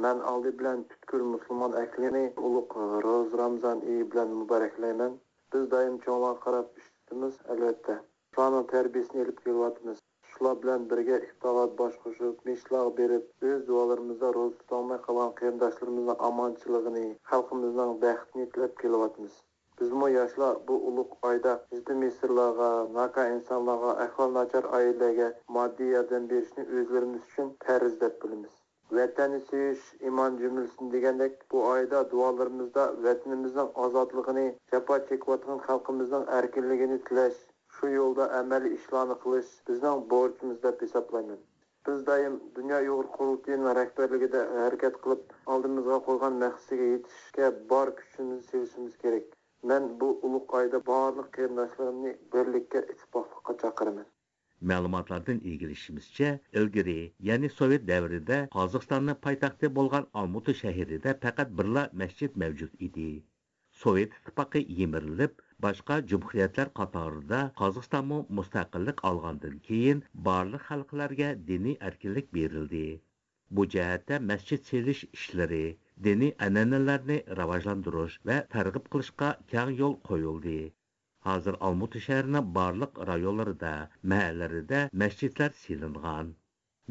مەن ئالدى بىلەن پۈتكۈل مۇسۇلمان ئەھلىنى ئۇلۇغ روزا رامزان ئېيى بىلەن مۇبارەكلەيمەن. بىز دائىم چوڭلارغا قاراپ ئىشلىتىمىز، ئەلۋەتتە. شۇلارنىڭ تەربىيىسىنى ئېلىپ كېلىۋاتىمىز. شۇلار بىلەن بىرگە ئىپتارلاردا باش قوشۇپ، مەسچىتلەرگە بېرىپ، ئۆز دۇئالىرىمىزدا روزا تۇتالماي قالغان قېرىنداشلىرىمىزنىڭ ئامانچىلىقىنى، خەلقىمىزنىڭ بەختىنى تىلەپ كېلىۋاتىمىز. بىزمۇ ياشلار بۇ ئۇلۇغ ئايدا يېتىم-يېسىرلارغا، ناكار ئىنسانلارغا، ئەھۋالى ناچار ئائىلىلەرگە ماددىي ياردەم بېرىشنى ئۆزلىرىمىز ئۈچۈن پەرز دەپ بىلىمىز. ۋەتەننى سۆيۈش، ئىمان جۈملىسىدىن دېگەندەك، بۇ ئايدا دۇئالىرىمىزدا ۋەتىنىمىزنىڭ ئازادلىقىنى، جاپا چېكىۋاتقان خەلقىمىزنىڭ ئەركىنلىكىنى تىلەش، شۇ يولدا ئەمەلىي ئىشلارنى قىلىش بىزنىڭ بورچىمىز دەپ ھېسابلايمەن. بىز دائىم دۇنيا ئۇيغۇر قۇرۇلتىيىنىڭ رەھبەرلىكىدە ھەرىكەت قىلىپ، ئالدىمىزغا قويغان مەقسىتىگە يېتىشكە بار كۈچىمىزنى سېلىشىمىز كېرەك. مەن بۇ ئۇلۇغ ئايدا بارلىق قېرىنداشلىرىمنى بىرلىككە، ئىتتىپاقلىققا چاقىرىمەن. مەلۇماتلاردىن ئىگىلىشىمىزچە، ئىلگىرى، يەنى سوۋېت دەۋرىدە قازاقىستاننىڭ پايتەختى بولغان ئالمۇتا شەھىرىدە پەقەت بىرلا مەسچىت مەۋجۇت ئىدى. سوۋېت ئىتتىپاقى يىمىرىلىپ، باشقا جۇمھۇرىيەتلەر قاتارىدا قازاقىستانمۇ مۇستەقىللىق ئالغاندىن كېيىن، بارلىق خەلقلەرگە دىنىي ئەركىنلىك بېرىلدى. بۇ جەھەتتە مەسچىت سېلىش ئىشلىرى، دىنىي ئەنئەنىلەرنى راۋاجلاندۇرۇش ۋە تەرغىب قىلىشقا كەڭ يول قويۇلدى. ھازىر ئالمۇتا شەھىرىنىڭ بارلىق رايونلىرىدا، مەھەللىلىرىدە مەسچىتلەر سېلىنغان.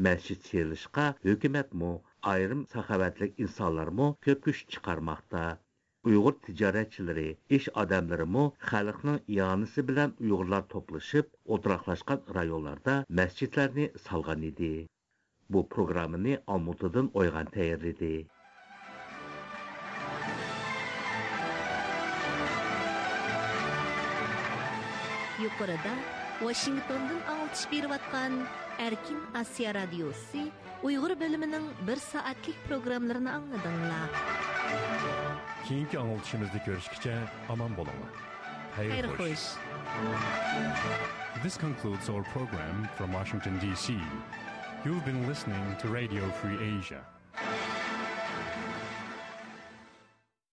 مەسچىت سېلىشقا ھۆكۈمەتمۇ، ئايرىم ساخاۋەتلىك ئىنسانلارمۇ كۆپ كۈچ چىقارماقتا. ئۇيغۇر تىجارەتچىلىرى، ئىش ئادەملىرىمۇ خەلقنىڭ ئىئانىسى بىلەن ئۇيغۇرلار توپلىشىپ، ئولتۇراقلاشقان رايونلاردا مەسچىتلەرنى سالغان ئىدى. بۇ پروگراممىنى ئالمۇتىدىن ئويغان تەييارلىدى. يۇقىرىدا ۋاشىنگتوندىن ئاڭلىتىش بېرىۋاتقان ئەركىن ئاسىيا رادىيوسى ئۇيغۇر بۆلۈمىنىڭ بىر سائەتلىك پروگراممىلىرىنى ئاڭلىدىڭلار. كېيىنكى ئاڭلىتىشىمىزدا كۆرۈشكىچە ئامان بولۇڭلار. خەير خوش. This concludes our program from Washington, D C. You've been listening to Radio Free Asia.